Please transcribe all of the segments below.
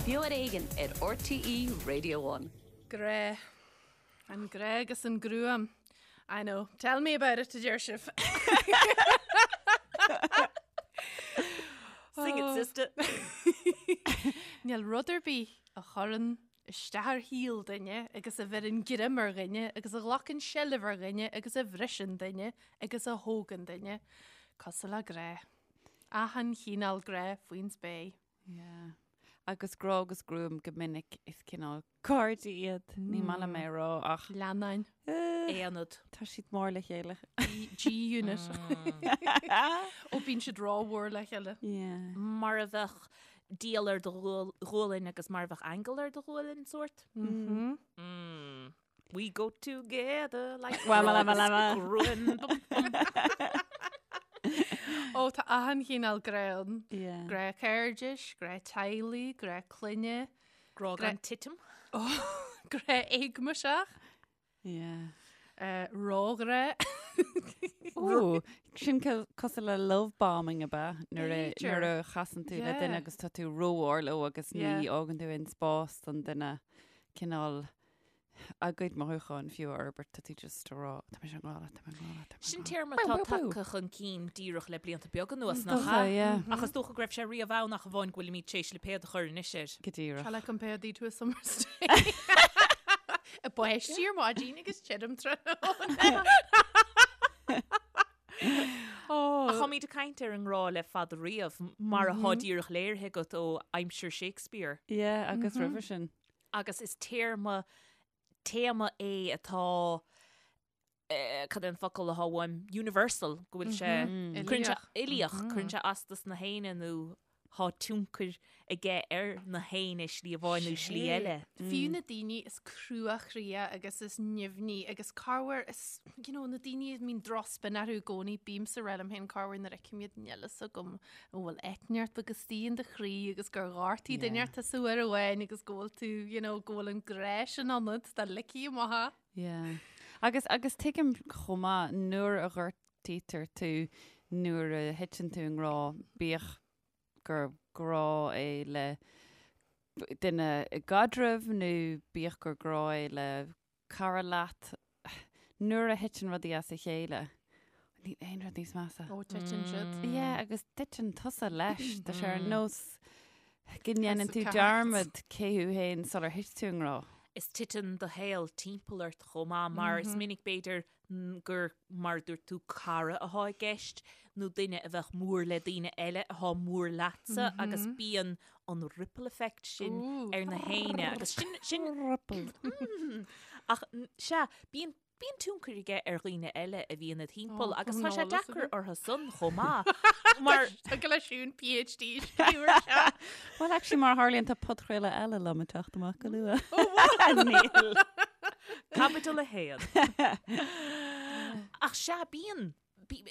Beo ar Éigean ar RTÉ Radio One. Grá. An grá agus an gruaim. I know. Tell me about it, a deir sibh. Sing it, sister. Níl rud ar bith a chuireann isteach ar shaol duine agus a bheireann greim ar dhuine agus a ghlacann seilbh ar dhuine agus a bhriseann duine agus a thógann duine cosúil le grá. Achan chineál grá faoin spéir. Yeah. Agus grá agus gruaim go minic is cineál cairde iad. Ní maith liom é a rá ach. Leannáin. Aonad. Tá siad mór le chéile. G-unit. Ó bíonn siad rómhór le chéile. Yeah. Mar a bheadh diabhal ar do ghualainn agus mar a bheadh aingeal ar do ghualainn sórt. Mm. Mm. We go together like Wama lama lama. gruaim. Ó tá achan chineál grá ann. Yeah. Grá cairdis, grá teaghlaigh, grá clainne, Grá gan titim. grá éagmaiseach, Yeah. eh, róghrá. Ó, sin cosúil le love bombing ab ea nuair a B'fhéidir. nuair a chasann tú le duine Yeah. agus tá tú rómhór leo agus ní Yeah. fhágann tú aon spás don duine cineál a gcuid mothúcháin fiú a fhorbairt tá tú just ag rá tá mise i ngrá leat, tá mé i ngrá leat, tá mé i Sin ngrá leat. téarma Bú, atá bú, bú. tagtha chun cinn díreach le blianta beaga anuas, Is nach dócha, ea? yeah. Ach is dócha go raibh sé riamh ann ach amháin go bhfuilimid tar éis lipéad a chur anois air. Go díreach. Shall I compare thee to a summer's day? Ag báisteach ar maidin agus tirim tráthnóna. Ach táimid ag caint ar an ngrá le fada riamh, mar atá díreach léirithe agat ó aimsir Shakespeare. Yeah, agus roimhe sin. Agus is téarma, téama é atá, cad é an focal atá uaim, universal, go bhfuil sé, cuireann sé, uilíoch, cuireann sé as dos na héinne nó tá tionchar aige ar na héinne slí amháin nó slí eile. Fiú na daoine is cruachroíche agus is nimhní agus corruair is, you know, na daoine a mbíonn drochspin orthu i gcónaí, bímse ag rá liom féin corruair nuair a fheicim iad níl fhios agam an bhfuil eitneacht agus istigh in do chroí agus gur ghortaigh duine inteacht tusa uair amháin agus go bhfuil tú, you know, go bhfuil an grá sin ionat, dá ligfí amach é. Yeah. Agus, agus tuigim chomh maith nuair a ghortaítear tú, nuair a thiteann tú i ngrá, bíodh gur grá é le duine i gcaidreamh nó bíodh gur grá é le cara leat, nuair a thiteann rudaí as a chéile, níl aon rud níos measa. Ó, titeann siad. Yeah, agus titeann tusa leis. Tá sé ar nós go ndéanann House tú of Cards. dearmad cé thú féin sular thit tú i ngrá. Is titeann do shaol timpeall ort chomh maith mar is minic b'fhéidir gur, mar a dúirt tú, cara atá i gceist nó duine a bheadh mór le daoine eile atá mór leatsa agus bíonn an ripple effect sin ar na héinne agus sin, sin, Ripple. ach sea, bíonn, bíonn tionchar aige ar dhaoine eile a bhíonn id thimpeall agus tá sé deacair orthu san chomh maith mar Tá go leis siún PhD scríobh ar seo. Well, actually, mar a tharlaíonn tá podchraoladh eile liom ag teacht amach go luath. Níl. Caibidil 1. Ach sea, bíonn,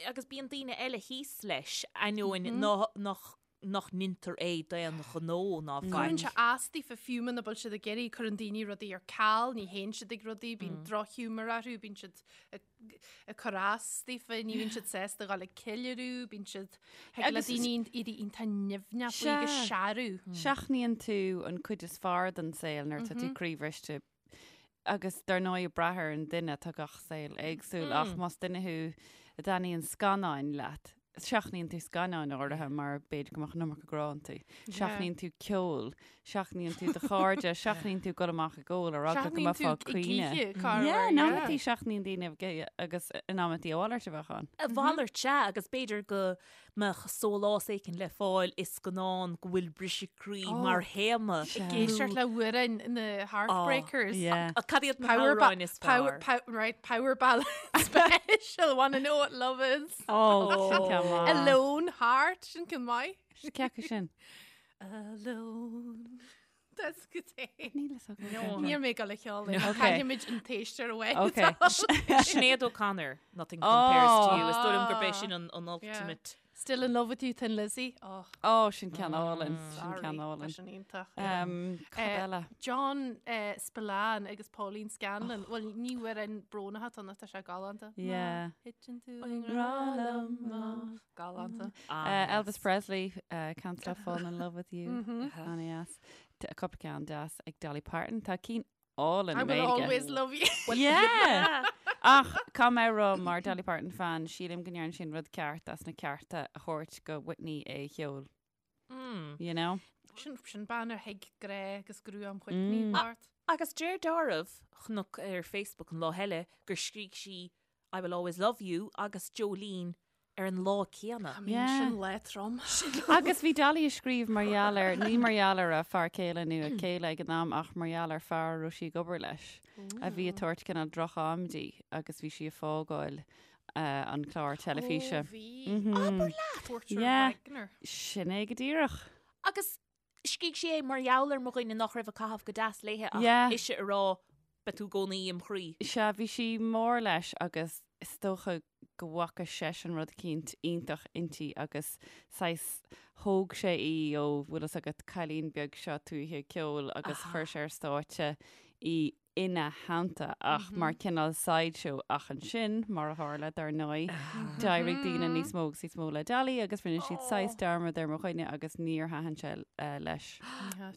agus bíonn daoine eile thíos leis, ainneoin nach nach ndeintear é d'aon ghnó ná faic. Cuireann sé as daofa fiú muna bhfuil siad ag iarraidh, cuireann daoine rudaí ar ceal, ní théann siad ag rudaí, bíonn drochghiúmar orthu, bíonn siad ag cur as daofa, ní bhíonn siad sásta a dhul ag ceiliúradh, bíonn siad, thig le daoine éirí iontach nimhneach faoi agus searradh. Seachnaíonn tú an cuid is fearr den saol nuair atá tú croíbhriste agus dar ndóigh ag brath ar an duine tá gach saol éagsúil ach más duine thú a dtaitníonn scannáin leat, seachnaíonn tú scannáin áirithe mar b'fhéidir go mbeadh an iomarca grá iontu. Seachnaíonn tú ceol, seachnaíonn tú do chairde, seachnaíonn tú dul amach ag ól ar eagla go mbeifeá ag caoineadh. Yeah, in amantaí seachnaíonn daoine agus in amantaí a mhalairt a bheadh ann. A mhalairt, sea, agus b'fhéidir go mbeadh sólás éicint le fáil i scannán go bhfuil briseadh croí mar théama. Ag éisteacht le hamhráin na Heartbreakers. Yeah. Cad iad na hamhráin is fearr? Right, power ballad special, wanna know what love is. Oh, sin ceann maith. Alone Heart, sin ceann maith. Sin cé acu sin. Alone. That's good. Níl a fhios agam. Níl mé ag dul a cheol. Okay. Caithfimid an t-éisteoir away. Okay. Sinéad O'Connor, Nothing Compares to You. Is dóigh liom gurb é sin an an ultimate. Still in love with you, Thin Lizzy. Oh. Oh, sin ceann álainn. Sin ceann álainn. Sin iontach. Um, cad Eh, eile? John eh, Spillane agus Pauline Scanlon. Well, ní amhrán brónach atá ann ach tá sé galánta. Yeah. Thiteann tú i ngrá liom, má. Galánta. Uh, Elvis Presley, uh, Can't Stop Falling in Love with You. An-deas. Cúpla ceann deas ag Dolly Parton. Tá cinn álainn I i will nGaeilge. always love you. Yeah! Ach caithfidh mé a rá mar Dolly Parton fan, sílim go ndearna sí an rud ceart as na cearta a thabhairt go Whitney é a cheol. You know? Sin, sin bean ar thuig grá agus gruaim Whitney mm. Bart. Agus deir dealramh chonac ar Facebook an lá eile gur scrígh sí I will always love you agus Jolene ar an lá céanna. I mean, sin lá trom. Agus bhí Dolly ag scríobh mar gheall ar, ní mar gheall ar a fear céile nó a céile ag an am ach mar gheall ar fear a raibh sí ag obair leis a bhí ag tabhairt cineál droch-am di agus bhí sí ag fágáil an clár teilifíse. Ó, bhí. Abair leat! Porter Yeah. Wagoner. Sin é go díreach. Agus scrígh sí é mar gheall ar mo dhuine nach raibh ag caitheamh go deas léithe ach Yeah. ise ag rá beidh tú i gcónaí im chroí. Sea, bhí sí mór leis agus is dócha go bhfaca seisean rud eicínt iontach inti agus saghas thóg sé í ó bhfuil fhios agat cailín beag seo tuaithe ceoil agus chuir sé ar stáitse í ina theannta ach mar cineál sideshow ach ansin, mar a tharla, dar ndóigh, d'éirigh daoine níos mó agus níos mó le Dolly agus rinne siad saghas dearmad ar mo dhuine agus níor thaitin sé leis.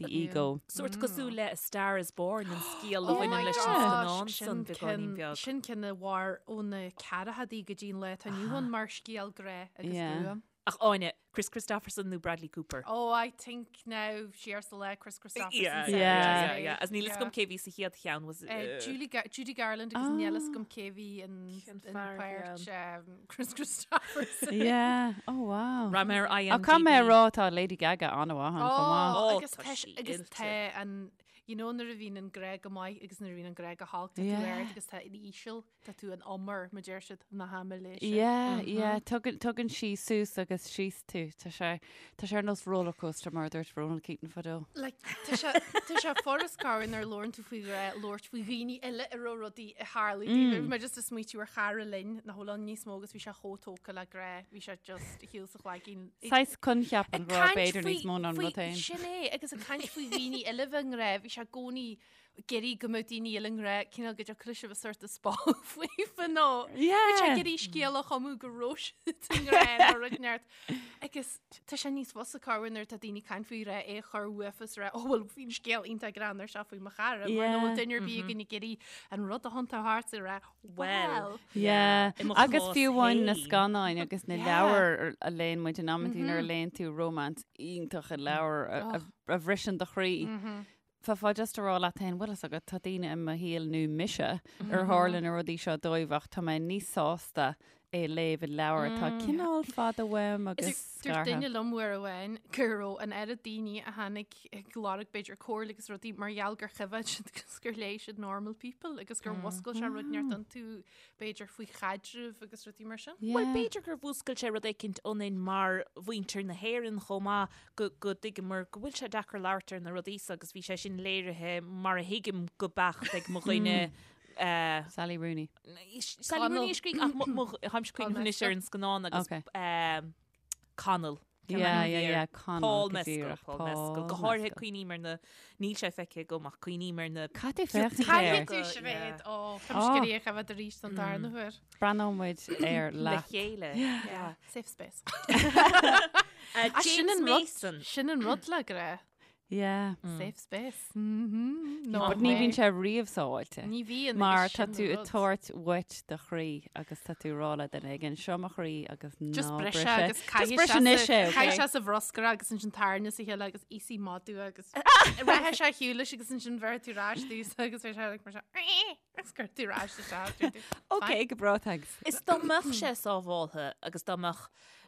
The ego. Sórt cosúil le A Star is Born, an scéal a Oh my bhaineann leis an gosh, scannán sin san beagáinín ceann- beag. Sin ceann a mhair ó na ceathrachaidí go dtí an lá atá inniu ann mar scéal grá agus Yeah. gruaim. Ach Áine, Kris Kristofferson nó Bradley Cooper? Oh, I think now siar sa le Kris Kristofferson. Yeah, said yeah, Yeah. yeah, yeah. As níl fhios agam cé bhí sa chéad cheann was Uh, Julie Gar Judy Garland agus níl fhios agam cé bhí in Cén in fear páirt um, Kris Kristofferson. Yeah. Oh wow. Raibh mé ar IMDb. Ach caithfidh mé a rá tá Lady Gaga an-mhaith ann chomh maith. Oh, Oh, agus tá tá sí agus oilte. tá an you know nuair a bhíonn an grá go maith agus nuair a bhíonn an grá go holc tá tú Yeah. ard agus tá in íseal Tá tú in umar, mar deir siad, na haimiléise. Yeah, yeah, tugann, tugann sí suas agus síos tú. Tá sé, tá sé ar nós rollercoaster mar a dúirt Ronan Keating fadó. Like, tá sé, tá sé furast corruair nuair a labhrann tú faoi ghrá, labhairt faoi dhaoine eile a raibh rudaí ag tarlú dóibh. Bhí mé just ag smaoitiú ar chara linn nach bhfuil ann níos mó agus bhí sé chomh tógtha le grá, bhí sé just a shiúl sa chlaigín. Saghas coincheap an Ag ghrá caint b'fhéidir faoi- níos mó ná an faoi- rud féin. Sin é, agus ag caint faoi dhaoine eile bheith i ngrá, bhí sé i gcónaí ag iarraidh go mbeadh daoine eile i ngrá, cineál go dtiocfadh leis a bheith sort of spáil faofa nó Yeah. Bhí sé ag iarraidh scéal a chumadh go raibh siad i ngrá nó rud inteacht. Agus tá sé níos fusa corruair nuair atá daoine ag caint faoi ghrá é a chur uafa is rá, oh well bhí an scéal iontach greannmhar seo faoi mo chara, mar nach bhfuil duine ar bith againn ag iarraidh an rud a thiontú thart is a rá, well. Yeah. I mo Agus chás fiú amháin na féin. scannáin agus na Yeah. leabhair a léann muid in amantaí nuair a léann tú romance iontach i leabhar a- a a bhriseann do chroí. Bheifeá just ag rá leat féin, bhfuil fhios agat, tá daoine i mo shaol nó mise ar tharla na rudaí seo dóibh ach tá mé níos sásta é a léamh i leabhar atá cineál fada uaim agus Dúirt scartha. duine liom uair amháin go raibh an oiread daoine a tháinig ag lorg b'fhéidir comhairle agus rudaí mar gheall gur choimhéad siad agus gur léigh siad Normal People agus gur mhuscail sé rud inteacht iontu b'fhéidir faoi chaidreamh agus rudaí mar sin. Bhuel, Yeah. b'fhéidir gur mhúscail sé rud éicint ionainn mar mhuintir na hÉireann chomh maith go go dtuigeamar go bhfuil sé deacair labhairt ar na rudaí so agus bhí sé sin léirithe mar a thuigim go beacht ag mo dhuine eh, Sally Rooney. Sally Connell. Rooney a scrígh ach mo- mo- tháimse cuimhneamh anois ar an scannán agus Okay. eh, Connell. Cén Yeah, ainm a yeah, bhí air? yeah, Connell, Paul go Mescal, díreach, Paul Mescal. Go Paul háirithe Mescal. cuimhním ar na níl sé feicthe agam ach cuimhním ar na Cad é féachaint air? Caithfidh tú Yeah. Sinéad ó Tá mise ag iarraidh a choimhéad arís don darna huair. Breathnóidh muid air le leat. chéile. Yeah. Safe space. Uh, Ah, sin James an rud- Mason. Sin an rud le grá. Yeah. Safe space. Mhm. No But ní way. bhíonn sé riamh sábháilte. Ní bhíonn. Mar agus tá sin tú an ag rud. tabhairt uait do chroí agus tá tú ag rá le duine éigin seo mo chroí agus Just ná bris bris é é. agus Just caithfidh bris sé anois sa- é, caithfidh okay? sé sa bhruscar agus ansin tarna sa chéile agus íosfaidh madadh agus rachaidh sé ar shiúl leis agus ansin bheir tú ar ais dús agus bheidh sé like mar seo, agus cuir tú ar ais isteach, dúirt tú, Ok, go breá, thanks. Is dá mbeadh sé sábháltha agus dá mbeadh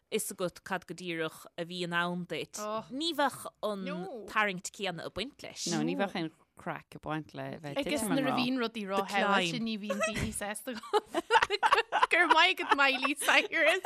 fhios agat cad go díreach a bhí in ann duit, Oh. ní bheadh an No. tarraingt céanna ag baint leis. No, ní bheadh aon craic ag baint le bheith Agus titim an nuair a rá. bhíonn rudaí The róshábháilte climb. ní bhíonn daoine sásta Go raibh maith agat Miley Cyrus.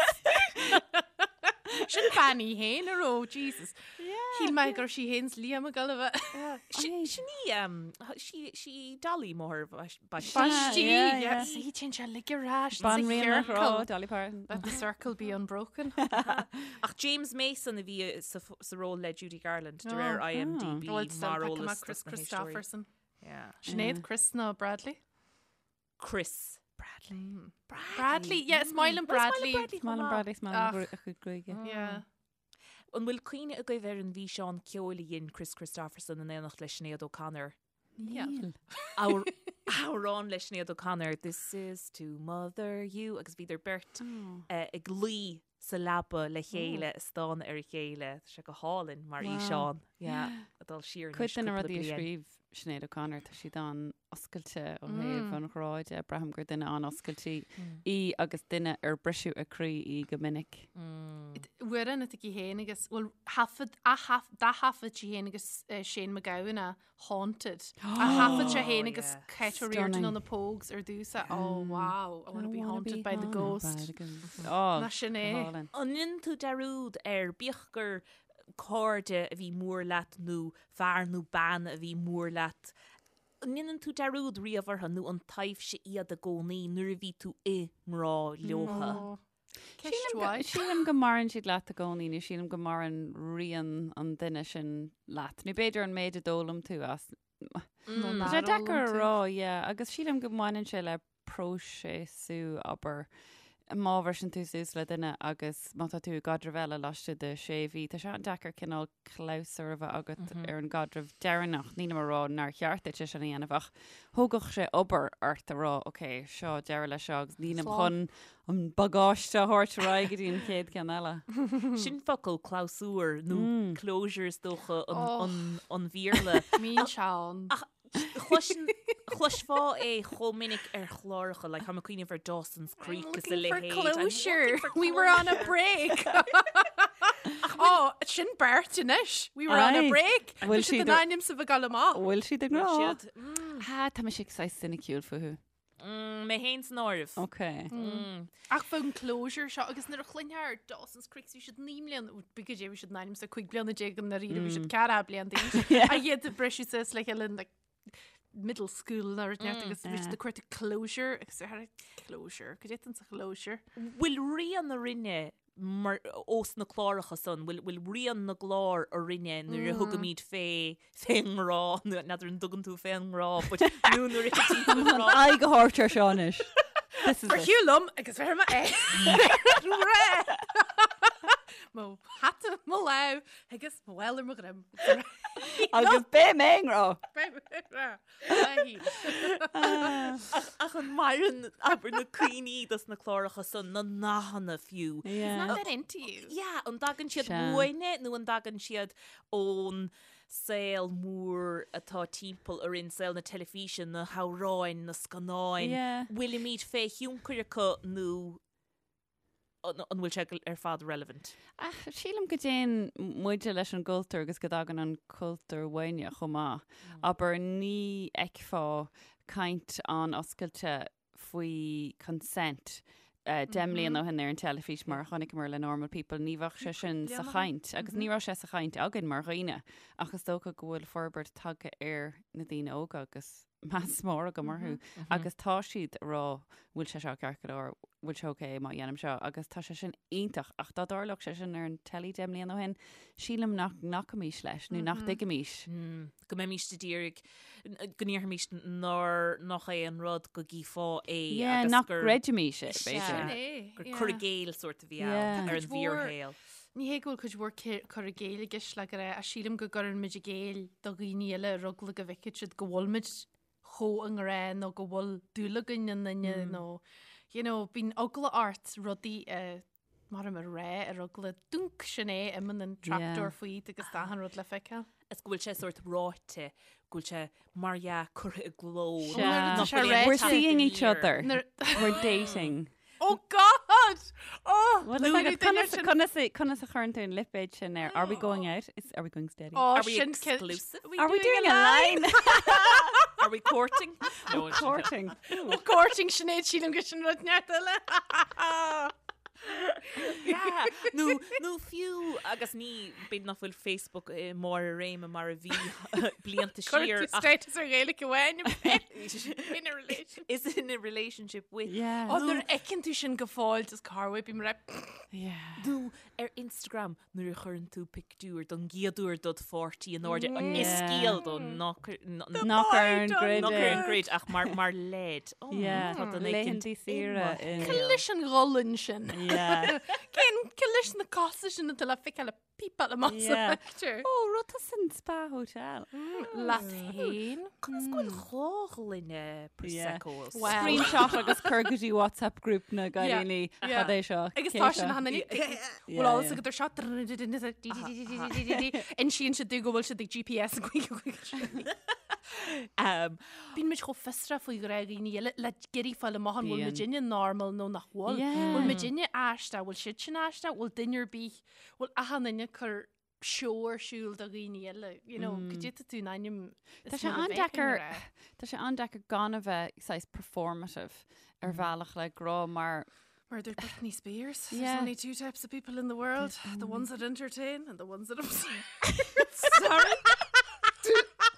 Sin bean í féin a raibh, Jesus. Yeah. Shíl mé go raibh sí féin 's Liam ag dul a bheith. Sin í, sí Dolly máthair Baistí. Baistí, yeah. Sí, téann sé uilig ar ais sa Banríon an chiorcal. ghrá, Dolly Parton. Let the circle be unbroken. Ach James Mason a bhí sa ról le Judy Garland de réir IMDb Bhuel, mar still eolas Chris dos na héisteoirí. Kristofferson. Yeah. Sinéad, Kris nó Bradley? Kris. Bradley. Bradley, yeah, is maith liom Bradley. Is maith liom Bradley, is maith liom a chuid gruaige. Yeah. An bhfuil cuimhne agaibh ar an bhfíseán ceoil a dhein Kris Kristofferson in éineacht le Sinéad O'Connor? Níl. Amhrán le Sinéad O'Connor, This is to mother you, agus bhíodar beirt ag luí sa leaba le chéile ag stánadh ar a chéile. Tá sé go hálainn mar fhíseán. Yeah, ag dul siar anois Cuid de na cúpla rudaí a bliain. scríobh Sinéad O'Connor, tá siad an-oscailte ó thaobh an ghrá de. Braithim gur duine an-oscailte í agus duine ar briseadh a croí í go minic. Amhrán atá aici féin agus, bhuel, thaifead, d'ath-thaifead sí féin agus Shane MacGowan é, Haunted. A thaifead sé féin agus Kate O'Riordan ó na Pogues ar dtús. Oh wow, I want to be haunted by the ghost. Oh, Ná sin é. An ndéanann tú dearúd ar, bíodh gur cairde a bhí mór leat nó fear nó bean a bhí mór leat, an ndéanann tú dearúd riamh orthu nó an taibhse iad i gcónaí nuair a bhí tú i ngrá leotha? Ceist mhaith. Sílim go maireann siad leat i gcónaí nó sílim go maireann rian an duine sin leat. Nó b'fhéidir an méid a d'fhoghlaim tú as. Nó Tá nár sé deacair fhoghlaim a tú. rá, yeah, agus sílim go mbaineann sé le próiseasú, abair, má bhriseann tú suas le duine agus má tá tú i gcaidreamh eile laistigh de sé mhí, tá sé an-deacair cineál clabhsúr a bheith agat ar an gcaidreamh deireanach. Nílim a rá nár cheart duit é sin a dhéanamh ach thógfadh sé obair ort a rá ok, seo deireadh leis seo agus nílim chun an bagáiste a thabhairt ar aghaidh go dtí an chéad ceann eile. Sin focal clabhsúr nó closure is dócha an Bhéarla. Mín seán. Ach Chloisfeá é chomh minic ar chláracha, like tá mé ag cuimhneamh ar Dawson's Creek is a Looking for leithéid. closure. We were on a break. Oh, sin beirt anois. We were on a Aye. break. Bhfuil Bhí siad siad in ar- ainm is a bheith ag dul amach. Bhfuil siad i ngrá? Siad. Mm, Ha, tá mise saghas soiniciúil fúthu. mm, mé féin san áireamh. Ok. Mm. Ach faoin closure seo agus nuair a chluinfeá ar Dawson's Creek bhí siad 9 mbliana, b'fhéidir goidé bhí siad in ainm is 15 bliana i ndáiríre bhí siad 14 bliain d'aois. A iad ag briseadh suas le chéile in like middle school nó rud inteacht agus bhí siad ag cuartú closure agus ar closure, goidé atá sa closure. Bhfuil rian orainne mar ós na cláracha san, bhfuil bhfuil rian na gclár orainne nuair a thugaimid fé fén ngrá, nó n'fheadar an dtugann tú fén ngrá, but nó nuair a thiteann tú i ngrá. Aghaidh a thabhairt ar seo anois. This is Ar it. shiúl liom agus bheir mé é. Ré! Mo hata i mo lámh agus mo mhála ar mo dhroim. Agus beidh mé i ngrá. Beidh mé i ngrá. Ach an maireann abair na cuimhní dos na cláracha san, na nathanna fiú. Yeah. Not that into you. Yeah, an dtagann siad Sea. uainne nó an dtagann siad ón saol mór atá timpeall orainn, saol na teilifíse, na hamhráin, na scannáin. Yeah. Bhfuilimid fé thionchar acu nó an bhfuil sé ar fad relevant? Ach sílim go dtéann muide leis an gcultúr agus go dtagann an cultúr uainne chomh maith. Abair, ní fheicfeá caint an-oscailte faoi consent 10 mbliana ó shin ar an teilifís mar a chonaiceamar le Normal People, ní bheadh sé sin sa chaint agus ní raibh sé sa chaint againn mar dhaoine ach is dócha go bhfuil forbairt tagtha ar na daoine óga agus meas mór agam orthu agus tá siad ag rá bhfuil sé seo ceart go leor, bhfuil sé ok má dhéanaim seo agus tá sé sin iontach ach dá dtarlódh sé sin ar an teilí 10 mbliana ó shin, sílim nach nglacfaimis leis nó nach dtuigfimis. Go mbeimis ag iarraidh, go ndéarfaimis nár, nach é an rud go gcífeá é Yeah, agus nach gur, gcreidfimis é, Sea. b'fhéidir. Sin é, gur yeah. cur i gcéill sórt a bhí Yeah. ann ar an Cuid mhór- bhfíorshaol. Ní hé go bhfuil cuid mhór cur i gcéill i gceist le go raibh, ach sílim go gcuireann muid i gcéill do dhaoine eile ar eagla go bhfeicfidh siad go bhfuil muid chomh i ngrá nó go bhfuil dúil againn i nduine nó you know, bíonn eagla ort rudaí a mar a rá ar eagla dúnc sin é imíonn an trapdoor faoi agus tá achan rud le feiceáil. Is go bhfuil sé sórt ráite, go bhfuil sé mar dhea curtha i gcló. Sea. nach Tá sé bhfuil aon ráite. We're teacht seeing each aniar. other. Nuair- We're dating. Oh God! Oh! Well, nuair a duine conas sin- conas conas a chuireann tú an lipéad sin air? Are we going out? Is, are we going steady? Oh, Are we sin exclusive? Are we doing a line? Are we courting? No, it's- Courting. Oh, courting Sinéad sílim go sin rud neart eile. Yeah, nó, nó fiú, agus ní, b'fhéidir nach bhfuil Facebook i mbarr a réime mar a bhí blianta Cuir siar tú ach status ar Ghaeilge amháin in a relationship. is in a relationship with. Yeah. Ó, nuair a fheiceann tú sin go fóill, just corruair, bím mar Yeah. Nó ar Instagram nuair a chuireann tú pictiúr don gcéad uair dod pháirtí in airde is Yeah. scéal dó nach Nach ar an grid nach ar é. an grid ach mar mar leid. Oh, Yeah. tá duine éicint Laethanta saoire i mo in- Cé leis an ghualainn sin. Yeah. Cén cé leis na cosa sin atá le feiceáil ag pípeáil amach sa Yeah. phictiúr. Ó, rud tá san spa hotel. Leat féin. Conas go bhfuil dhá ghloine Prosecco? Well. Screenshot agus cur go dtí WhatsApp group na gcailíní Yeah. cad é seo. Agus cé tá seo? sin han Yeah, Bhfuil eolas yeah. agat ar seo Insíonn siad domh go bhfuil siad ag GPS Um, Bíonn muid chomh fiosrach faoi ghrá dhaoine eile le iarraidh fáil amach an bhfuil Bíonn. muidinne normal nó nach bhfuil. Yeah. Bhfuil muidinne aisteach, bhfuil siad sin aisteach, bhfuil duine ar bith, bhfuil achan duine ag cur seó ar siúl do dhaoine eile, you know, go dtitfidh tú in ainm Tá sé an-deacair Tá sé an-deacair gan a bheith saghas performative ar bhealach le grá mar Mar a dúirt Britney Spears, there's Yeah. only two types of people in the world, the ones that entertain and the ones that observe. Sorry?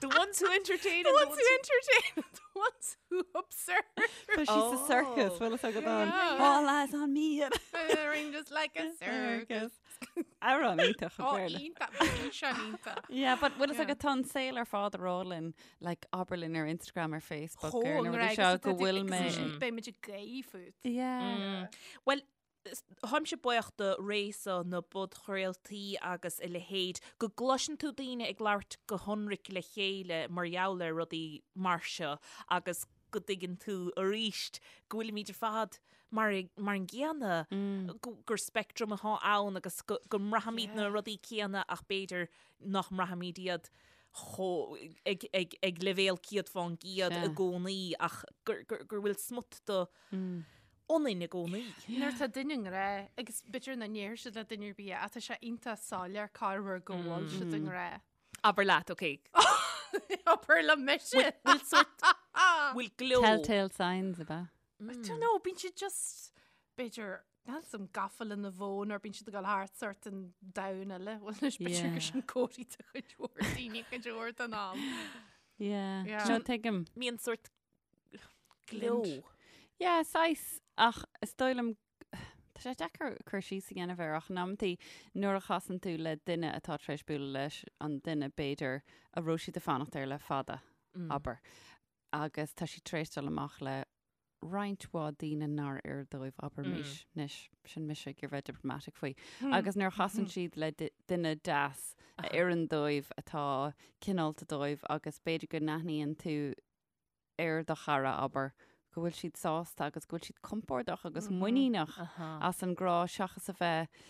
The ones who entertain The and the ones who entertain and the ones who observe. Tá sí sa circus, bhfuil a fhios agat an. Yeah. All eyes on me. Ring just like a circus. Amhrán iontach Ó, an Béarla. iontach, bhí sé iontach. Yeah, but bhfuil a fhios Yeah. agat tá an saol ar fad ag rá linn, like abair linn ar Instagram ar Facebook Chomh ar na rudaí an-rá, seo agus go tá tú- bhfuil agus mé. ansin beidh muid ag gáire fút. Yeah. Well, táimse buíoch do ré seo na bpodchraoltaí agus a leithéid, go gcloiseann tú daoine ag labhairt go hionraic le chéile mar gheall ar rudaí mar seo agus go dtuigeann tú arís go bhfuilimid ar fad mar mar an gcéanna, gur speictream atá ann agus go go mbraithimid na rudaí céanna ach b'fhéidir nach mbraithimid iad chomh ag ag ag leibhéal 100% i gcónaí ach gur gur gur bhfuil smut de ionainn i gcónaí. Nuair atá duine i ngrá, agus b'fhéidir nach ndéarfaidh siad le duine ar bith é, ach tá sé iontach soiléir corruair go bhfuil siad i ngrá. Abair leat, ok. Abair le mise! Bhfuil sort, bhfuil gleo. Telltale signs ab ea? I don't know, bíonn siad just, b'fhéidir, níl 'fhios a'm gafa lena bhfón or bíonn siad ag dul thart sort in domhan eile. Bhuel anois b'fhéidir gur sin comharthaí do chuid mhór daoine cuid mhór den am. Yeah. Yeah. No, tuigim. Mbíonn sort gleo. Yeah, saghas, ach is dóigh liom, tá sé deacair cur síos a dhéanamh air ach in amantaí nuair a chasann tú le duine atá tar éis bualadh leis an duine b'fhéidir a raibh siad ag fanacht air le fada, abair, agus tá siad tar éis dul amach le roinnt mhaith daoine nár oir dóibh, abraimis, anois, sin mise ag iarraidh bheith diplomatic faoi, agus nuair a chasann siad le duine deas a oireann dóibh, atá cineálta dóibh agus b'fhéidir go n-aithníonn tú ar do chara, abair, go bhfuil siad sásta agus go bhfuil siad compordach agus muiníneach as an ngrá seachas a bheith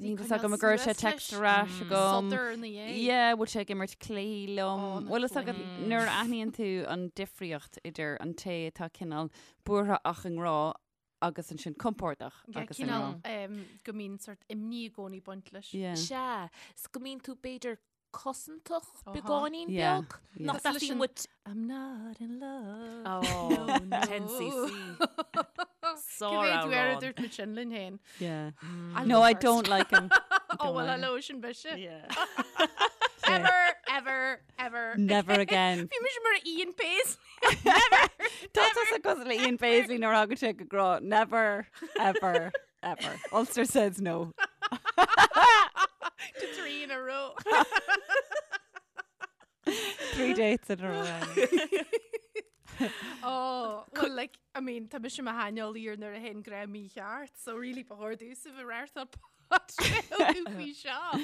Níl fhios agam an gcuirfidh sé text ar ais agam. Sodar ina dhiaidh. Yeah, bhfuil sé ag imirt cluichí liom. Ó, na Bhfuil fhios agat cluichí. nuair a aithníonn tú an difríocht idir an té atá cineál buartha ach i ngrá agus ansin compordach Yeah, agus i ngrá. cineál em, go mbíonn sort imní i gcónaí ag baint leis. Yeah. Sea, 's go mbíonn tú b'fhéidir cosantach Aha. beagáinín Yeah, beag. yeah. Nach Cosúil leis dteastaíonn an- uait I'm not in love. Oh, No, no. 10cc. Cé mhéad uair a Sár-amhrán. dúirt muid sin linn féin? Yeah. I'll No, go I first. don't like him. Oh, well, like him. hello, sin mise. Yeah. Ever, ever, ever. Never again. Bhí mise mar Ian Paisley. Never. Tá tusa cosúil le Ian Paisley nuair a thagann sé go grá. Never, ever, ever. Ulster says no. To three in a row. Three dates in a row. Oh, well, like, I mean, tá mise i mo shaineolaí ar nuair a théann grá mícheart, so really ba chóir domhsa bheith ag reáchtáil podchraoladh faoi seo.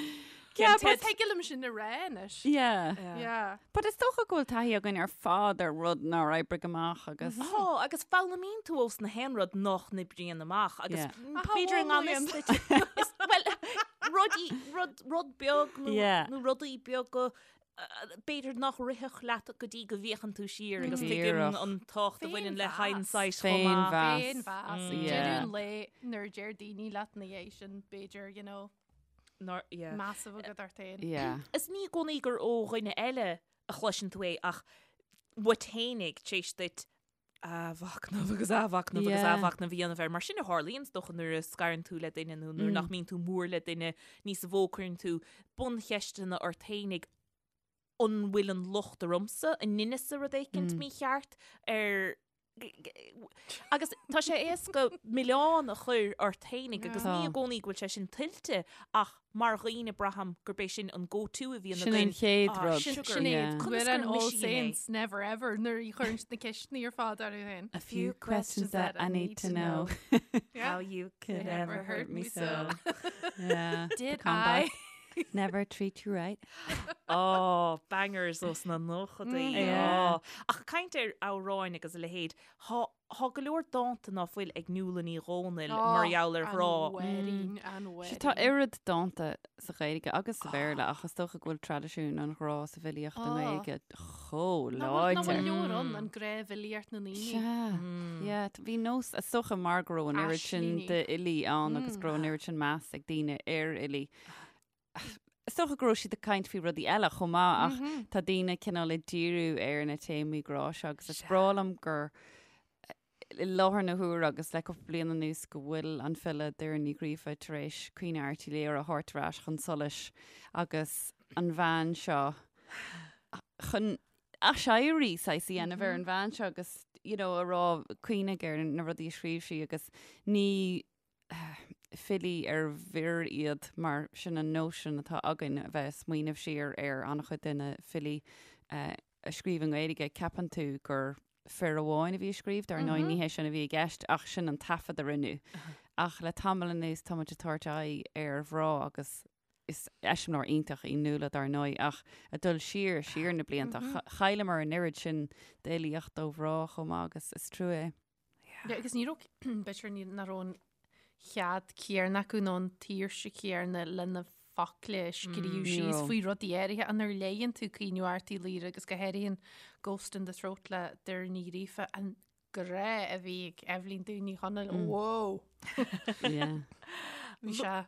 Yeah, But but thig liom sin a rá anois. yeah. Yeah. But is dócha go bhfuil taithí againn ar fad ar rud nár oibrigh amach agus Tá, agus foghlaimíonn tú ós na haon rud nach n-oibríonn amach agus Yeah. b'fhéidir i ngan fhios duit. Is- Well, rudaí, rud, rud beag nó, Yeah. nó rudaí beaga b'fhéidir nach rithfeadh leat go dtí go bhféachann tú siar agus tuigim Díreach. an tábhacht a bhaineann le Féinmheas. hindsight chomh maith. Féinmheas. Féinmheas. Yeah. Deireadh an lae nuair a deir daoine leat ina dhiaidh sin, b'fhéidir, you know, Nár, yeah. meas a bheith agat ort féin. Yeah. Is ní i gcónaí gur ó dhuine eile a chloiseann tú é ach uait fhéinig tar éis duit. athmhachnamh agus athmhachnamh agus athmhachnamh a dhéanamh air. Mar sin a tharlaíonn is dócha nuair a scarann tú le duine nó nuair nach mbíonn tú mór le duine níos mó cuireann tú buncheisteanna ort fhéinig an bhfuil an locht ormsa, an ndeineas-sa rud éicint mícheart ar Agus tá sé éasca milleán a chur ort fhéinig agus ní i gcónaí go bhfuil sé sin tuillte ach mar dhaoine braithim gurb é sin an go-to a bhíonn Sin an againn. chéad Ah, rud. sin Sin é Yeah. Conas Cuireann gur All mise í mé? Saints never ever nuair a chuireann siad na ceisteanna ar fad orthu féin. A few questions that I need to know. Yeah. How you could Could ever ever hurt hurt me me so. so. Yeah. the Did comeback. I? Never treat you right. Oh, bangers ós na nóchadaí. Yeah. Oh. Ach caint ar amhráin agus a leithéid, thá thá go leor dánta ná fuil ag Nuala Ní Dhomhnaill mar gheall ar ghrá. An mhuirín, an Sea, tá mhuirín. oiread dánta sa Ghaeilge agus sa Bhéarla ach is dócha go bhfuil traidisiún an ghrá sa bhfilíocht i nGaeilge chomh Nach bhfuil nach bhfuil láidir. leor ann, an ghnáthfhilíocht na ndaoine. Sea, yeah, bhí nós, is dócha mar go raibh an oiread sin Aislíní. d'fhilí ann agus go raibh an oiread sin meas ag daoine ar fhilí. Is dócha go raibh siad ag caint faoi rudaí eile chomh maith ach tá daoine cineál ag díriú ar na téamaí grá seo agus is breá liom gur i láthair na huaire agus le cúpla bliain anuas go bhfuil an file Doireann Ní Ghríofa tar éis Caoineadh Airt Uí Laoghaire a thabhairt ar ais chun solais agus an bhean seo chun aiséirí saghas a dhéanamh ar an bhean seo agus you know a rá cuimhnigh ar na rudaí a scríobh sí agus ní filí ar bhfir iad mar sin an nóisean atá againn a bheith ag smaoineamh siar ar an-chuid de na filí a scríobh i nGaeilge, ceapann tú gur fir amháin a bhí ag scríobh, dar ndóigh ní hé sin a bhí i gceist ach sin an taifead a rinneadh. Ach le tamall anuas tá muid ag tabhairt aghaidh ar mhná agus is eiseamláir iontach í Nuala dar ndóigh ach ag dul siar, siar na blianta, chailleamar an oiread sin d'fhilíocht ó mhná chomh maith agus is trua é. Yeah, agus ní raibh, b'fhéidir ní nach raibh an cead céanna acu nó an tsaoirse chéanna le na focla a scríobh ní síos raibh. faoi rudaí áirithe ach nuair a léigheann tú Caoineadh Airt Uí Laoghaire agus go háirithe an Ghost in the Throat le Doireann Ní Ghríofa, an grá a bhí ag Eibhlín Dubh Ní Chonaill, whoa! Yeah. Bhí sé,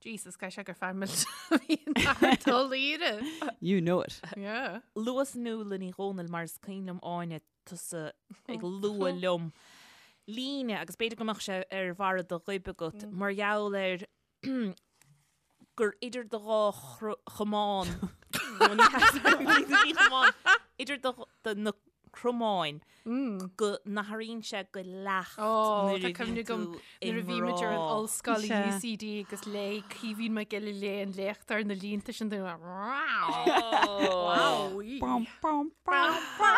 Jesus, caithfidh sé gur fear millteach a bhí in Art Ó Laoghaire. You know it. Yeah. Luas Nuala Ní Dhomhnaill mar is cuimhin liom Áine tusa ag lua liom líne agus b'fhéidir go mbeadh sé ar bharra do ghoib agat mar gheall ar gur idir do dhá chamán nó ní ní chamán idir do do na cromáin go n-athraíonn sé go leacht Ó, nuair tá a cuimhne bhíonn agam tú i nuair a bhí muid ar an ngrá. ollscoil i Sea. UCD agus léigh Caoimhín Mac Giolla Léith an léachtóir na línte sin dúinn. Wow. Bum, bum, bum, bum.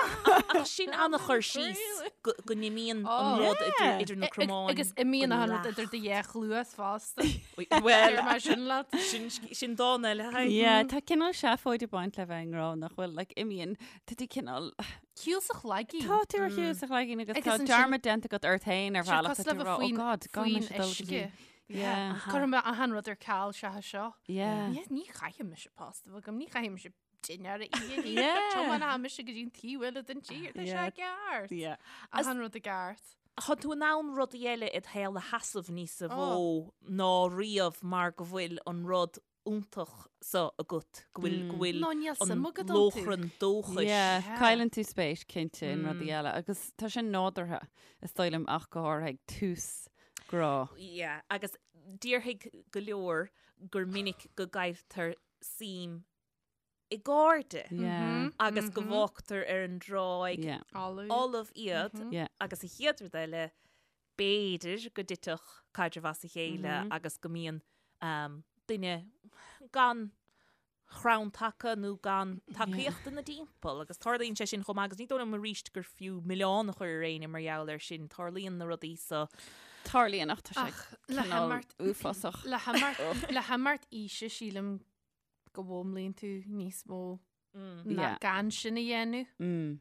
Ach sin an-chur síos go go n-imíonn an Oh. rud idir Yeah. idir na cromáin. Agus imíonn go an rud leacht. idir do dhá chluas fosta. Well, Deir mé sin leat. sin sin dán eile. Hi. Yeah, tá cineál seafóid ag baint le bheith i ngrá nach bhfuil, like, imíonn, tá tú cineál, Shiúl sa chloigín. Tá tú ar shiúl sa chloigín agus Agus tá ansin- dearmad déanta agat ort féin ar Sé bhealach cosúil tá le tú bheith ag rá, oh faoin- God, gan faoin mise dul go uisce. dtí. Yeah. Cuirfidh mé achan rud ar ceal seachas seo. Yeah. Ní ní chaithfidh mise post a bheith agam, ní chaithfidh mise dinnéar a ithe. Yeah. Tiomáinfidh mise go dtí an taobh eile den tír, tá sé Yeah. ceart. Yeah. Achan rud i gceart. Tá tú in ann rudaí eile id shaol a sheasamh níos mó ná riamh mar go bhfuil an rud iontach so agat, go bhfuil, go bhfuil Nó níl an suim agat iontu. lóchrann dóchais. Yeah, Yeah. cailleann tú spéis cinnte in rudaí eile agus tá sin nádúrtha is dóigh liom ach go háirithe ag tús grá. Yeah, agus déarfaidh go leor gur minic go gcailltear suim i gcairde Yeah. agus go bhfágtar ar an dtráigh Yeah. Folamh. fholamh iad Yeah. agus an chéad rud eile b'fhéidir go dtitfeadh caidreamh as a chéile agus go mbíonn um, duine gan chrann taca nó gan tacaíocht ina dtimpeall agus tarlaíonn sé sin chomh maith agus ní dóigh liom arís gur fiú milleán a chur ar éinne mar gheall air sin, tarlaíonn na rudaí so. Tarlaíonn ach tá sé Ach le cineál himeacht uafásach. le himeacht le himeacht aoise sílim go bhfoghlaimíonn tú níos mó ná Yeah. gan sin a dhéanamh. Mm.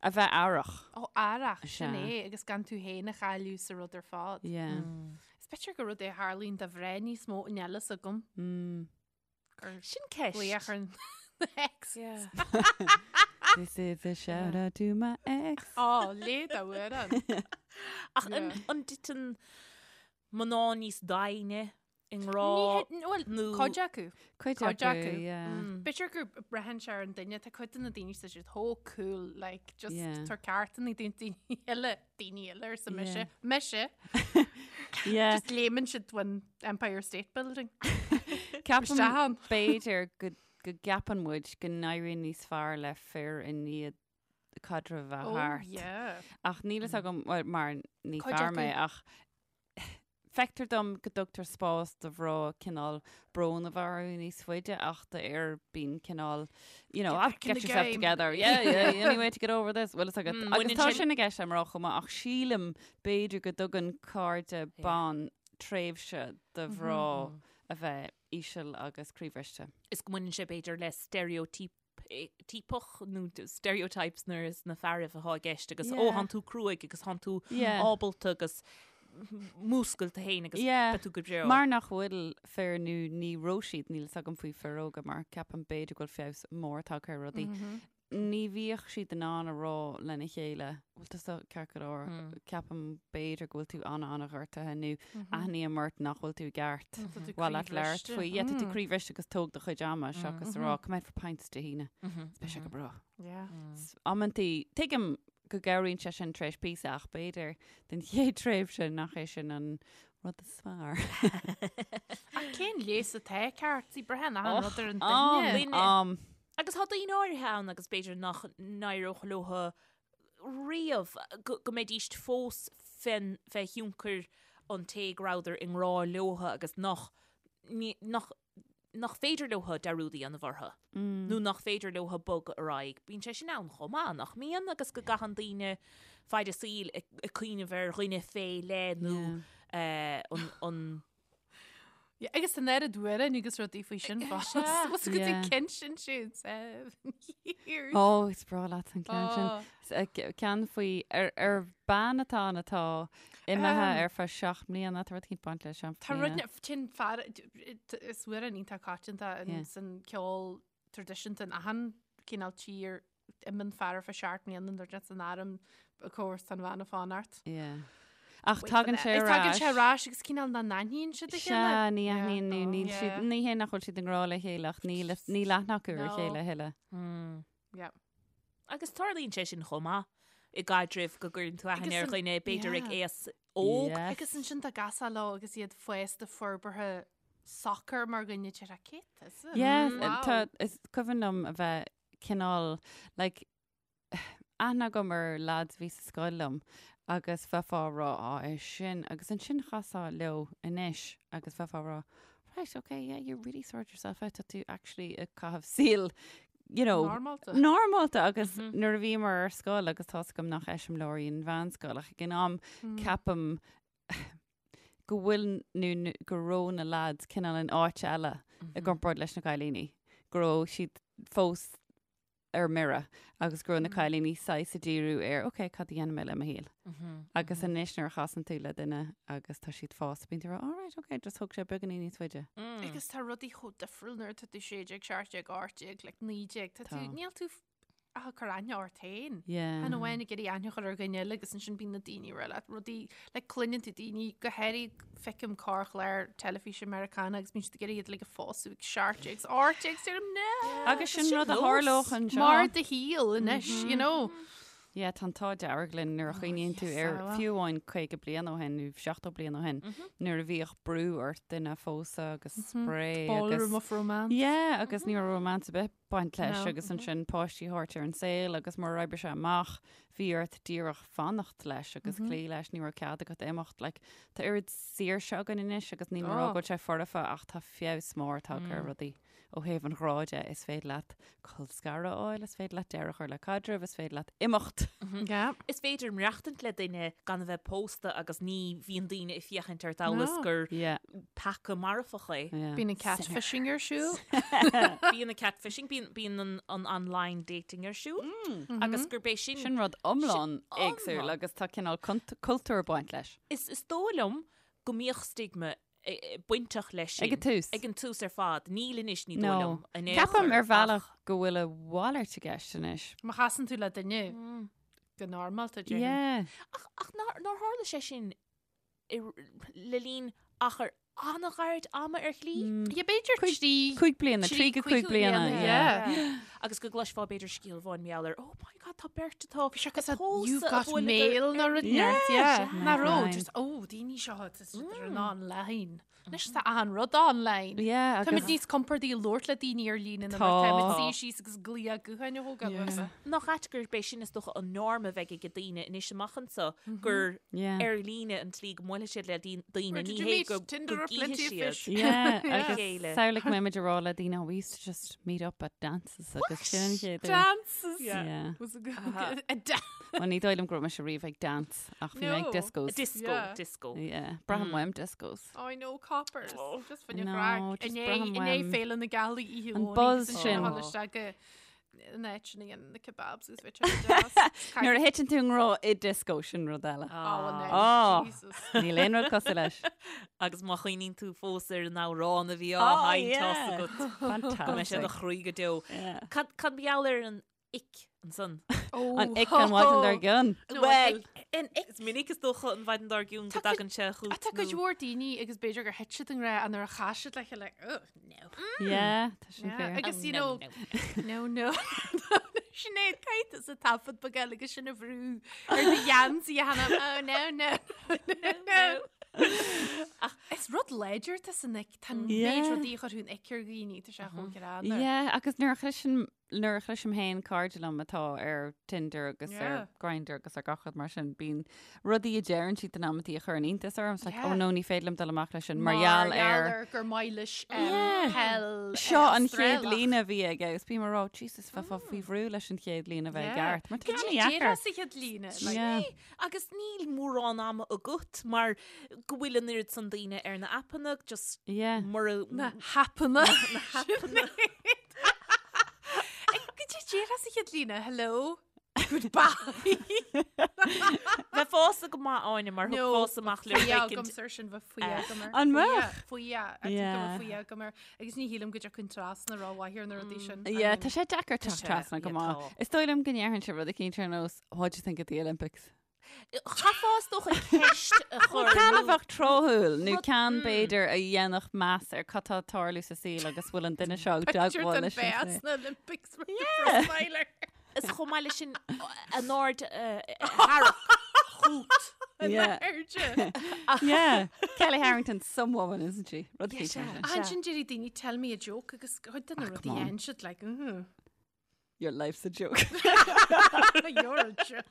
A bheith aireach. Ó aireach sin Sea. é agus gan tú féin a chailleadh sa rud ar fad. Yeah. Is b'fhéidir gur rud é a tharlaíonn do mhná níos mó níl a fhios agam. Mm. Gur Sin ceist. glaoch ar an ex. Yeah. This is a shout out to my ex. Ó, léigh d'amhrán. Ach an Yeah. an dtiteann mná níos doimhne? i ngrá Bhuel, nó cuid acu. Cuid Cuid acu, acu. yeah. B'fhéidir gur braitheann sé ar an duine, tá cuid de na daoine tá siad chomh cool, like, just Yeah. tar ceartanna daoine eile, daoine eile arsa mise. Yeah. Mise, Yeah. just léimeann siad ón Empire State Building. Ceapaim Isteach ann. b'fhéidir go go gceapann muid go n-éiríonn níos fearr le fir i ndiaidh caidreamh a bheith Oh, thart. yeah. Ach níl fhios agam, well, mar ní Cuid fear mé, acu. ach feictear dom go dtugtar spás do mhná cineál brón a bheith orthu níos faide ach d'fhir bíonn cineál, you know, Get ah, back in get the yourself game. together, yeah, yeah, any way to get over this. Bhfuil fhios agat. Agus baineann tá sin- sin i gceist le mná chomh maith, ach sílim b'fhéidir go dtugann cairde ban tréimhse do mhná a bheith íseal agus croíbhriste. Is go mbaineann sé b'fhéidir le stereotype tíopach nó stereotypes nuair is na fearaibh atá i gceist agus ó Yeah. thánn tú cruaidh agus thánn tú Yeah. ábalta agus múscail tú féin agus Yeah. beidh tú go breá. Mar nach bhfuil fir nó ní raibh siad, níl fhios agam faoi fir óga mar ceapaim b'fhéidir go bhfuil feabhas mór tagtha ar rudaí. Ní bhíodh siad in ann a rá lena chéile, bhfuil tusa ceart go leor, ceapaim b'fhéidir go bhfuil tú ana-ana-ghortaithe nó aithním ort nach bhfuil tú i gceart. Tá tú Bhfuil leat labhairt croíbhriste. faoi. Yeah, tá tú croíbhriste agus tóg do chuid ama seachas a rá, come out for pints Dé hAoine. Beidh sé go breá. Yeah. Amantaí, tuigim go gcabhraíonn sé sin tar éis píosa ach b'fhéidir den chéad tréimhse nach é sin an rud is fearr. Ach cén leigheas atá ceart? Sí braitheann achan rud ar an Am, duine. Duine. am. Agus tá daoine áirithe ann agus b'fhéidir nach n-éireodh leo riamh go go mbeidíst fós fén fé thionchar an té go rabhadar i ngrá leo agus nach ní nach nach féidir leo dearúd a dhéanamh orthu nó nach féidir leo bogadh ar aghaidh. Bíonn sé sin ann chomh maith, nach mbíonn? Agus go gcaitheann daoine faid a saoil ag ag cuimhneamh ar dhuine fé leith nó an an Yeah, agus an oiread amhráin agus rudaí faoi sin fós. Was go Yeah. cinn sin siúd years. Ó, is breá leat an ceann sin. Oh. S- Ceann faoi ar, ar bean atá ann atá imithe ar feadh 7 mbliana, tá rud éicint baint le 7 Tá rud mbliana. sin fear is amhrán iontach coitianta Yeah. san ceol traidisiúnta in achan cineál tír imíonn fear ar feadh 7 mbliana nuair atá san arm of course tá an bhean ag fanacht. Yeah. Ach tagann sé ar Tagann sé ais. ar ais agus cineál nach n-aithníonn siad a chéile. Sea, ní aithníonn nó níl siad, Yeah. ní hé nach bhfuil siad i ngrá le chéile ach níl, níl aithne acu ar a No. chéile a thuilleadh. Yeah. Agus tarlaíonn sé sin chomh maith i gcaidrimh go gcuireann tú aithne Agus ar an- dhuine b'fhéidir ag yeah. aos óg. Yes. Agus ansin tá gasá leo agus iad fásta forbartha socair mar dhuine deir cé tusa? Yes, Wow. tá, is cuimhin liom a bheith cineál, like, aithne agam ar lads a bhí sa scoil liom agus bheifeá ag rá, á, é sin, agus ansin chasfá leo anois agus bheifeá ag rá, right, okay, yeah, you really sorted yourself out, tá tú actually ag caitheamh saol, you know, Normálta. normálta agus nuair a bhíomar ar scoil agus tá's agam nach eiseamláir í an mheánscoil ach ag an am ceapaim go bhfuil nó go raibh na lads cineál in áit eile i gcomparáid leis na cailíní, go raibh siad fós ar mire agus go raibh na cailíní saghas ag díriú ar ok, cad a dhéanfaidh mé le mo shaol? Agus anois nuair a chasann tú le duine agus tá siad fásta, bíonn tú ag rá alright, ok, just thóg sé beagáinín níos faide. Agus tá rudaí chomh difriúil nuair atá tú 16, 17, 18, like 19, tá tú, Tá. níl tú ach ag cur aithne ort féin. Yeah. Chan amháin ag iarraidh aithne a chur ar dhuine eile agus ansin bíonn na daoine ag rá leat rudaí, like cluineann tú daoine, go háirithe feicim corrchlár teilifíse Meiriceánach agus bíonn siad ag iarraidh iad like a phósadh ag 17 agus 18 agus deirim no! Agus sin rud a tharlódh anseo. Mar do shaol anois, you know. Yeah, tá an t-ádh dearg linn nuair a chuimhníonn tú yes, ar ah. fiú amháin 50 bliain ó shin nó 70 bliain ó shin nuair a bhíodh brú ort duine a phósadh agus spraoi agus Ballroom of romance. Yeah, agus ní raibh romance ar bith baint leis No. agus ansin páistí a thabhairt ar an saol agus murar oibrigh sé amach bhí ort díreach fanacht leis agus cloí leis, ní raibh cead agat imeacht. Like, tá oiread saoirse againn anois agus níl mé ag rá Oh. go bhfuil sé foirfe ach tá feabhas mór tagtha ar rudaí. Ó thaobh an ghrá de, is féidir leat col scaradh a fháil, is féidir leat deireadh a chur le caidreamh, is féidir leat imeacht. Yeah. Is féidir maireachtaint le duine gan a bheith pósta agus ní bhíonn daoine ag féachaint ort amhail is No. gur Yeah, peaca marfach é. yeah. Bíonn an catfishing ar siúl. Bíonn an catfishing, bíonn, bíonn an, an online dating ar siúl agus gurb é sin, Sin rud iomlán Sin éagsúil iomlán. agus tá cineál cultúr ag baint leis. Is, is dóigh liom go mbíodh stigma bainteach leis sin. Ag an tús. Ag an tús ar fad. Níl anois, ní dóigh No. liom. in aon Ceapaim chor, ar bhealach ach- go bhfuil a mhalairt i gceist anois. Má chasann tú le duine go normálta, déarfainn. Yeah. Ach, ach nár, nár tharla sé sin i, le linn achar an-ghairid ama ar shlí. Yeah, b'fhéidir trí... 5 bliana, 3 go 5 bliana, yeah. Agus go gcloisfeá b'fhéidir scéal amháin mar gheall ar, oh my god, tá beirt atá Bhí sé cos you've got mail nó rud inteacht, yeah. Nach raibh, just, oh, daoine seo, tá siad ar an online. Anois tá achan rud online. Yeah, agus... Táimid níos compordaí ag labhairt le daoine ar líne ná mar táimid suí síos agus glaoch gutháin a thógáil uathu. Nach ait gurb é sin is dócha an norm a bheidh ag daoine anois amach anseo gur ar líne an tslí go mbuailfidh siad le daoine, ní hé go gcífidh siad Yeah, agus samhlaigh go mbeimid ag rá le daoine, oh, we used to just meet up at dances agus sin an chéad uair. Dances! Yeah. Was a good... A dance. Well, ní dóigh liom go raibh mise riamh ag dance ach bhí mé ag No. discos. Disco, Yeah. disco. Yeah, braithim uaim discos. Oh, I know, coppers. Just fan No, chraic. just Inné braithim inné uaim. Féile na Gealaí oíche An Dhomhnaigh buzz agus sin. ansin a isteach go an áit sin a dhéanann na kebabs is bheith deas. Nuair a thiteann tú i ngrá i disco sin rud eile. Oh, well, Oh. Jesus. Níl aon rud cosúil leis. Agus má chuimhníonn tú fós ar an amhrán a bhí á Oh, sheinnt yeah. agat go mbeidh sé i do Fantastic. chroí go deo. Yeah. Cad cad mar gheall ar an ick ansan. An ick an mhaidin dár gcionn. Well, is minic is dócha an mhaidin dár gcionn go dtagann sé chugat. Tá cuid mhór daoine agus b'fhéidir gur thit siad i ngrá nuair a chas siad le chéile, oh, no. Yeah, tá sin fair. Agus you know, no, no. Sinéad caithfidh tusa taifead beag eile agus sin a bhrú ar do gheansaí a sheinm, oh no, no, no, no. Is rud láidir tá san ick, tá an méid rudaí a chuirfeadh an ick ar dhaoine, tá sé chomh greannmhar. Yeah, agus nuair a chloiseann Nuair a chloisim féin cairde liom atá ar Tinder agus ar Yeah. Grindr agus ar gach rud mar sin, bíonn rudaí a deireann siad in amantaí a chuireann iontas orm. It's like, Yeah. oh no, ní féidir liom dul amach leis sin mar gheall ar gur maith leis Yeah. peil Seo an chéad Australach. líne a bhí aige agus bím ag rá, Jesus, bheifeá faoi bhrú leis an chéad líne a bheith Yeah. i gceart. Mar tá Cad é an-deacair. déarfá sa chéad líne? Like, Yeah. Agus níl mórán ama agat mar go bhfuil an oiread san daoine ar na aipeanna, just Yeah. mura Na haipeanna. Na haipeanna. Cad é déarfá sa chéad líne, hello, goodbye. Bheifeása go maith Áine mar thiocfása amach le Faoi rud éicint. agam sir sin bheith faoi agam air. An mbeadh? Faoi Yeah. faoi agam air. Agus ní shílim go dtiocfainn trasna rómhaith ar na rudaí sin. Yeah, tá sé deacair Tá teacht sé, trasna go yeah, maith. tá. Is dóigh liom go ndéarfainnse rud eicínt ar nós, what do you think of the Olympics? Chaithfeá is dócha ceist a chur. Ceann a bheadh tráthúil nó Rud- ceann b'fhéidir a dhéanfadh meas ar cad tá ag tarlú sa saol agus bhfuil an duine seo ag Picture teagmháil den leis an béas saol. na Olympics mar the profiler. Is chomh maith leis sin an aird a tharrac chugat. Yeah. Airde. Yeah. Kelly Harrington, some woman, isn't she? Rud Yeah, eicínt sea. mar sin. Ansin déarfaidh daoine tell me a joke agus cuid de na Ah, rudaí come on. a dhéanann siad like, mhm. Your life's a joke. You're a joke.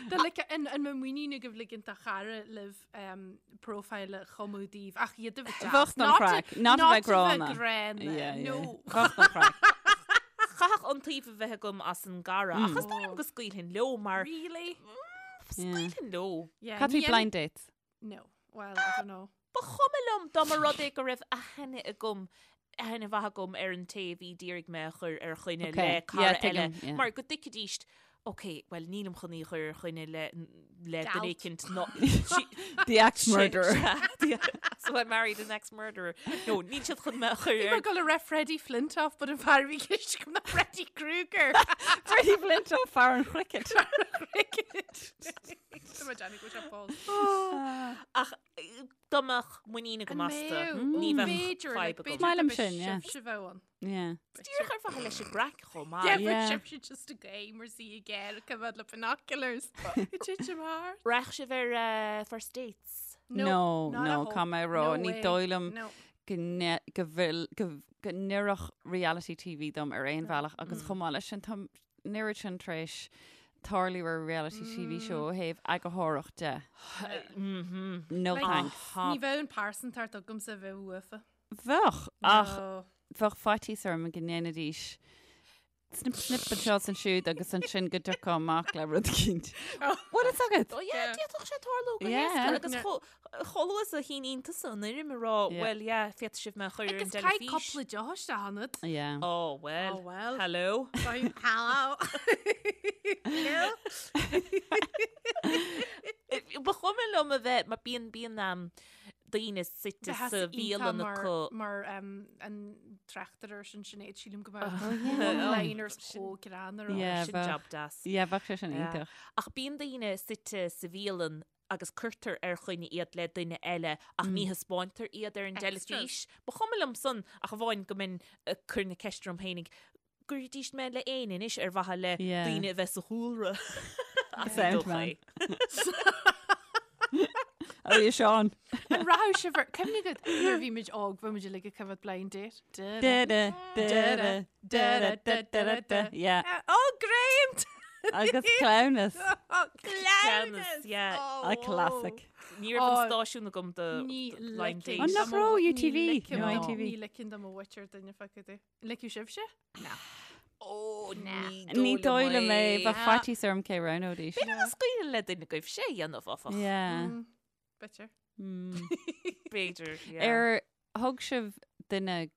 Tá like an an mbeadh muinín agaibh ligint do chara libh um, profile a chumadh daoibh ach iad a bheith deas. Bheadh don chraic, not a bheith gránna. gránna. Yeah, yeah. No. Bheadh don chraic. Chaithfeadh iontaoibh a bheith agam as an gcara ach is dóigh liom go scaoilfinn leo mar Really? scaoilfinn leo. Yeah, Cad ní faoi blind dates? No. Well, I don't know. Ba chuma liom dá mba rud é go raibh aithne agam aithne mhaith agam ar an té a bhí d'iarraidh mé a chur ar choinne Okay. le cara Yeah, eile tuigim, yeah. mar go dtuigfidís ok, well nílim chun í a chur ar choinne le le Galt. duine éicint ná The ex-murderer. So I married an ex-murderer. No, níl siad chun mé a chur Bhí ar mé ag dul a rá Freddie Flintoff, but an fear a bhí i gceist agam ná Freddy Krueger. Freddie Flintoff, fear an chricket. Cricket. Tá mé ag déanamh go bhfuil sé fós. Ach dá mbeadh muinín agam An astu, mbeadh? ní bheadh B'fhéidir, like, fadhb agam. b'fhéidir Maith liom go mbeadh sin, yeah. sibhse bheith ann. Yeah. Díreach ar mhaithe leis an gcraic chomh maith. Yeah, but Yeah. sibhse just a game or see again, come out le binoculars. It did your heart. Raghadh sibh ar eh, first dates. No, not no, at all. caithfidh mé a rá, No ní way. dóigh liom No. go ne- go bhfuil go go n-oirfeadh reality TV dom ar aon bhealach agus chomh maith leis sin tá an oiread sin tar éis tarlú ar reality TV show ó thaobh eagarthóireacht de. No Like, thanks. Ní bheadh an pearsantacht agamsa a bheith uafa. Bheadh, ach No. bheadh faitíos orm go ndéanfaidís snip snip anseo is ansiúd agus ansin go dtiocfá amach le rud eicínt. Bhfuil fhios agat? Oh yeah, Yeah. d'fhéadfadh sé tarlú go Yeah. héasca agus chomh luath is a shíníonn tusa an fhoirm ag rá, Yeah. well yeah, féadfaidh sibh mé a chur ar an Agus caith dteilifís. cúpla deoch isteach ionat. Yeah. Oh well. Oh well. Hello. Fine. Hello. Hello. Ba chuma liom a bheith, mar bíonn bíonn um, daoine suite Bheadh sa iontach bhialann mar acu. mar um, an tráchtaire sin Sinéad sílim go mbeadh one-liners chomh greannmhar. Yeah, Sin bheadh. job deas. Yeah, bheadh sé sin Yeah. iontach. Ach bíonn daoine suite sa bhialann. agus cuirtear ar choinne iad le duine eile ach ní thaispeántar iad ar an dteilifís. Ba chuma liom san ach amháin go mbeinn ag cur na ceiste orm féinig, gcuirfidís mé le éinne anois ar mhaithe le daoine a bheith sa chúlra. Ach ní dócha é. Oh, yeah, Seán. An rachadh sibh ar cuimhne agat nuair a bhí muid óg bhí muid uilig ag coimhéad blind date. Da da da da da da da da Yeah. Oh, great! Agus cleamhnas. Oh, Cleamhnas, yeah. A classic. Ní raibh an stáisiún agam do blind date. An nach raibh UTV? No, ITV. Ní ligfinn do mo mhuintir duine feiceáil di. Ligfeadh sibhse? Na. Ó, ní Ní dóigh liom é, bheadh faitíos orm cé roghnóidís. B'fhéidir nach scaoileadh le duine agaibh sé a dhéanamh, áfach. Yeah. B'fhéidir. B'fhéidir, yeah. Ar thug sibh duine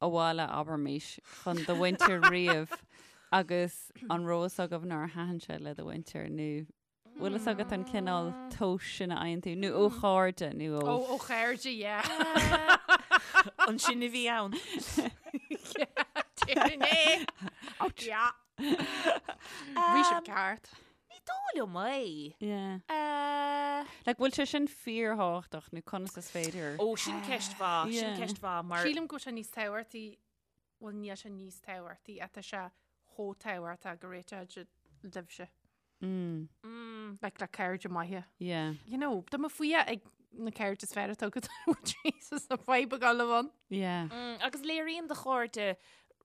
abhaile, abraimis, chun do mhuintir riamh agus an raibh fhios agaibh nár thaitin sé le do mhuintir nó bhfuil fhios agat an cineál tomhais sin a fhaigheann tú nó ó chairde nó ó. Ó ó chairde, yeah. Ansin a bhí ann. Yeah, é. Ouch. Yeah. Bhí sibh ceart. Ní dóigh liom é. Yeah. Like, bhfuil sé sin fíorthábhachtach nó conas is féidir? Ó, sin ceist mhaith, sin ceist mhaith mar. Sílim go bhfuil sé níos tábhachtaí, bhuel níl sé níos tábhachtaí, ach tá sé chomh tábhachtach go réiteoidh libhse. Mm. Like le cairde maithe. Yeah. You know, tá mé faoi ag na cairde is fearr atá agat Jesus na fadhb a gabháil ann. Yeah. Mm, agus léiríonn do chairde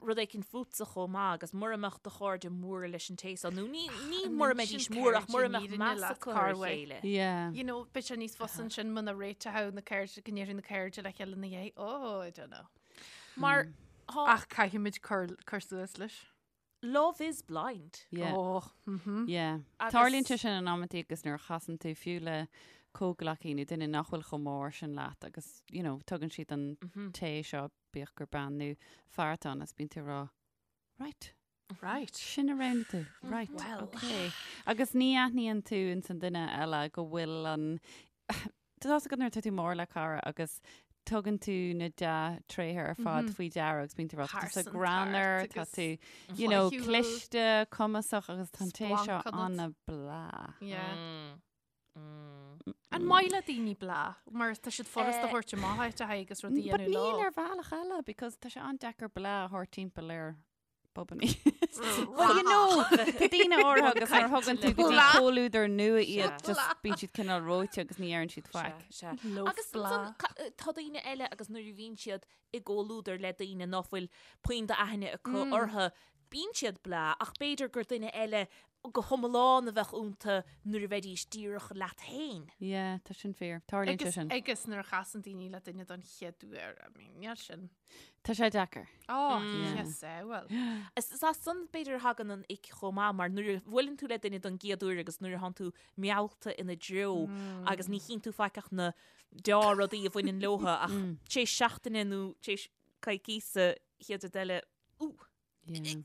rud éicint fútsa chomh maith agus mura mbeadh do chairde mór leis an té seo nó ní ní mura mbeidís mór ach mura mbeadh meas acu ar a chéile. Yeah. You know, beidh sé níos fusa ansin muna réiteoidh na cairde go ndéarfaidh na cairde le chéile ina dhiaidh. Oh, I don't know. Mar mm. Ach caithfimid cur cur suas leis. Love is blind. Yeah. Oh, mhm. Yeah. Agus- Tarlaíonn sé sin in amantaí agus nuair a chasann tú fiú le comhghleacaí nó duine nach bhfuil chomh mór sin leat agus, you know, tugann siad an té seo, bíodh gur bean nó fear atá ann, agus bíonn tú ag rá, right, Right. sin a roghnaigh tú, right, Well. okay. Agus ní aithníonn tú ins an duine eile go bhfuil an Tá fhios agat nuair atá tú mór le cara agus tugann tú na dea-tréithe ar fad faoi deara agus bíonn tú ag rá, tá tú Pearsantacht greannmhar, tá agus tú, you know, flaithiúil. cliste, cumasach agus tá an té seo Splanc ionat. an-bhleá. Yeah. An maith le daoine bleá? Mar tá siad furasta a thabhairt amach áit a haghaidh agus rudaí a But dhéanamh níl leo. ar bhealach eile because tá sé an-deacair bleá a thabhairt timpeall ar Bobannaí. Well, you know, tá daoine áirithe agus nuair a thugann tú go dtí Blah. comhluadar nua iad, Blah. just bíonn siad cineál reoite agus ní deireann siad faic. Sea, sea. Loaf Agus blah. ansan, ca- tá daoine eile agus nuair a bhíonn siad i gcomhluadar le daoine ná fuil puinn d'aithne acu orthu, bíonn siad bleá ach b'fhéidir gur duine eile go hiomlán a bheadh iontu nuair a bheidís díreach leat féin. Yeah, tá sin fíor. Tarlaíonn sé Agus, sin. agus nuair a chasann daoine le duine don chéad uair, I mean, níl sin. Tá sé deacair. Ó, Yeah. yes, eh, well. Is is as san b'fhéidir a thagann an ick chomh maith mar nuair a bhuaileann tú le duine don gcéad uair agus nuair a thánn tú meallta ina dtreo agus ní chíonn tú faic ach na deá-rudaí a bhaineann leotha ach tar éis seachtaine nó tar éis coicíosa chéad rud eile, ú, Yeah.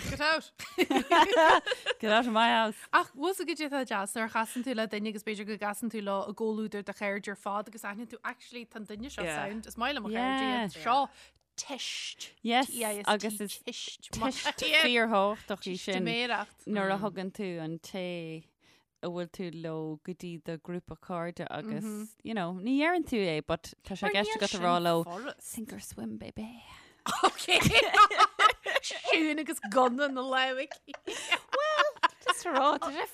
Get out! Get out of my house. Ach bhfuil fhios agat cad é atá deas nuair a chasann tú le duine agus b'fhéidir go gcasann tú leo i gcomhluadar do chairde ar fad agus aithníonn tú actually tá an duine seo Yeah. sound is maith liom mo chairde Yeah. iad seo tist Yes, T-I-S-T, agus is tist Teist fíorthábhachtach í sin Teistiméireacht. nuair a thugann tú an té a bhfuil tú leo go dtí do grúpa cairde agus, you know, ní dheireann tú é, but tá sé i gceist agat a rá leo, sink or swim, baby. Ok. Siún agus gunna na lámh aici. Just a rá, tá sé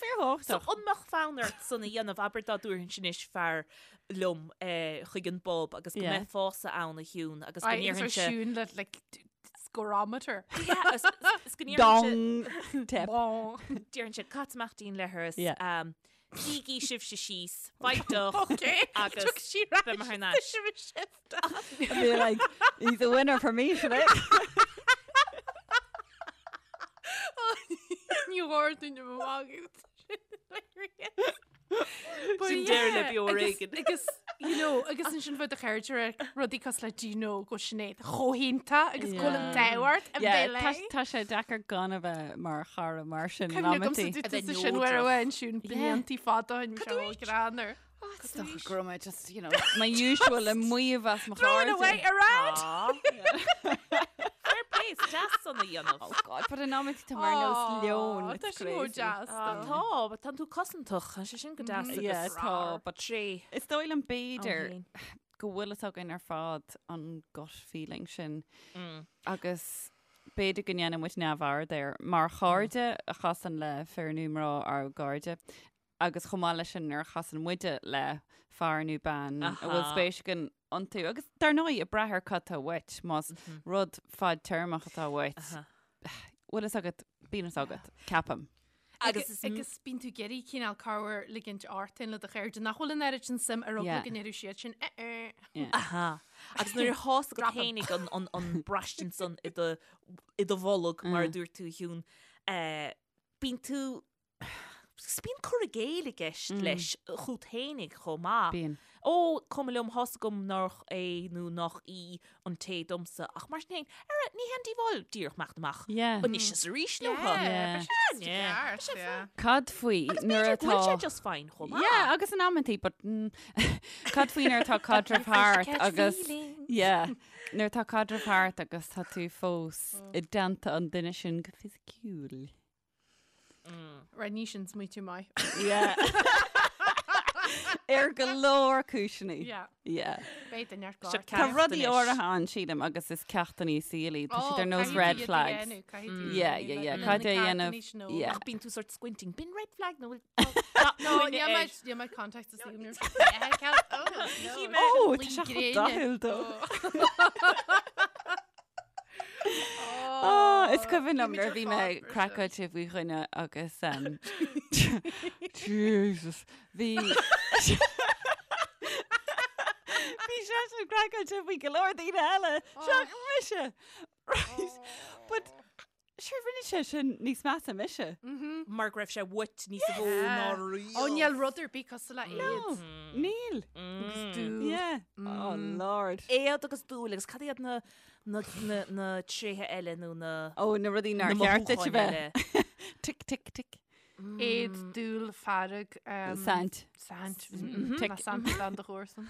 So fíorthábhachtach. an mbeadh fonn ort san a dhéanamh abair dá dtabharfainnse anois fear liom eh, chuig an bpub agus go Yeah. mbeifeása ann a Shiún agus go Aye, agus ar ndéarfainnse Siún le like scorometer. Yeah, is- is go ndéarfainnse Dong! Tip. Bong. Déarfainnse cad amach dínn leithreas Yeah. um, Bígí sibhse síos, faigh deoch Ok. agus Took sí ar beidh mé thar n-ais. I'd be like, he's a winner for me, should I? Ní dúinn am amach. Sin deireadh le beo ar éigean. Agus, you know, agus ansin bheadh do chairde ag rudaí cosúil le do you know go Sinéad chomh hiontach agus go bhfuil an t-ádh ort a Yeah, bheith tá léi. tá sé deacair gan a bheith mar chara mar sin in Cuimhne agamsa amantaí. dúirt A bheith tusa sin uair neodrach. amháin Siún bliantaí fada ó shin, bhí sé chomh greannmhar. Is dócha go raibh mé just, you know, my usual ag maíomh as mo Throwing chairde. away around! Fair play, is deas. deas san a dhéanamh. Oh God, but in amantaí tá mé ar nós leon. Tá It's sin chomh crazy. deas. Ah, Tá, but tánn tú cosantach, tá sé sin go deas Yeah, agus tá, but tré. Is dóigh liom b'fhéidir féin. go bhfuil fhios againn ar fad an gut feeling sin agus b'fhéidir go ndéanann muid neamhaird air mar chairde a chasann le fir nó mná ár gcairde agus chomh maith leis sin nuair a chasann muide le fear nó bean a bhfuil spéis againn iontu agus dar ndóigh ag brath ar cad tá uait más rud fadtéarmach atá uait bhfuil fhios agat bíonn fhios agat ceapaim. Agus is Agus bíonn tú ag iarraidh cineál corruair ligint ort féin le do chairde nach bhfuil an oiread sin suim ar eagla go ndéarfadh siad sin eh eh. Yeah. Aha. Agus nuair a thá's agat fhéinig an, an, an braistint san i do, i do bholg, mar a dúirt tú, a Shiún, eh, bíonn tú Agus bíonn cur i gcéill i gceist leis chút fhéinig chomh maith. Bíonn. Ó, cuma liom, thá's agam nách é nó nách í an té domsa, ach mar sin féin, ara, ní haon díobháil díreach imeacht amach Yeah. anois is arís leo. Yeah. Yeah, yeah. Yeah. Cad faoi Agus nuair b'fhéidir go bhfuil sé atá just fine chomh maith. Yeah, agus in amantaí, but mm, cad faoi nuair atá caidreamh thart Catch agus feelings. yeah, nuair atá caidreamh thart agus tá tú fós i dteannta an duine sin go fisiciúil. Right, ní sin smaoitiú maith. Yeah. Ar go leor cúiseanna. Yeah. Yeah. Beidh duine ar Seo gcár. Tá ceacht rudaí anois. áirithe ann sílim agus is ceachtanna saoil iad. Tá siad ar nós red flags. Yeah, yeah, yeah. Caithfidh tú a dhéanamh. Yeah. Ach bíonn tú sort squinting. B'in red flag nó bhfuil No, níl mé níl mé contact is níl mé. Oh, tá sé chomh dathúil dó. Oh, is cuimhin liom nuair a bhí mé craiceáilte faoi dhuine agus um, Jesus, bhí Bhí seisean craiceáilte faoi go leor daoine eile, seachas mise. Right. But sure rinne sé sin níos measa mise. Mar go raibh sé uait níos mó ná riamh. Ó níl rud ar bith cosúil le No, éad. níl. Agus dúil. Yeah. Oh Lord. Éad agus dúil agus cad iad na na na na tréithe eile nó na Ó, na rudaí nár na cheart duit a mothúcháin bheith. eile? Tic, tic, tic. Éad, dúil, fearg, Saint. Saint. Tic. Ná saint dan do chomharsan.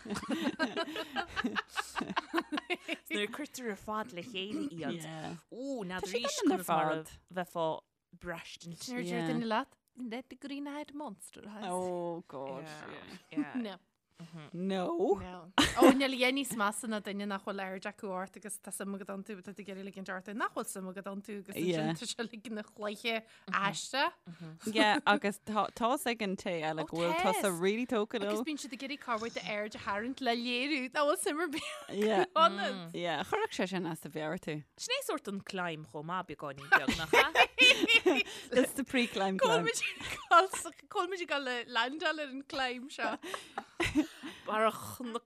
Nuair a cuirtear ar fad le chéile iad. Yeah. Ó, Tá siad n'fheadar ann ar conas mar a fad. bheifeá braistint. Nuair a deir Yeah. duine leat, Let the green-eyed monster has. Oh God. Yeah. No. No. No. Ó, níl a dhath níos measa ná duine nach bhfuil aird acu ort agus tá suim agat iontu, tá tú ag iarraidh ligint ort nach bhfuil suim agat iontu agus ansin Yeah. tá sé uilig ina chluiche aisteach. Yeah, agus tá tá's ag an té eile Ó, go bhfuil tusa tá's. really tógtha Agus leo. bíonn siad ag iarraidh corruair d'aird a tharraingt le léiriú nach bhfuil suim ar bith Yeah. ionat. Yeah, chuirfeadh sé sin as do mheabhair tú. Sin é sórt an climb chomh maith beagáinín beag nach ea? That's the pre-climb climb. Cá bhfuil muid ag dul le landáil ar an climb seo. Barra Chnoc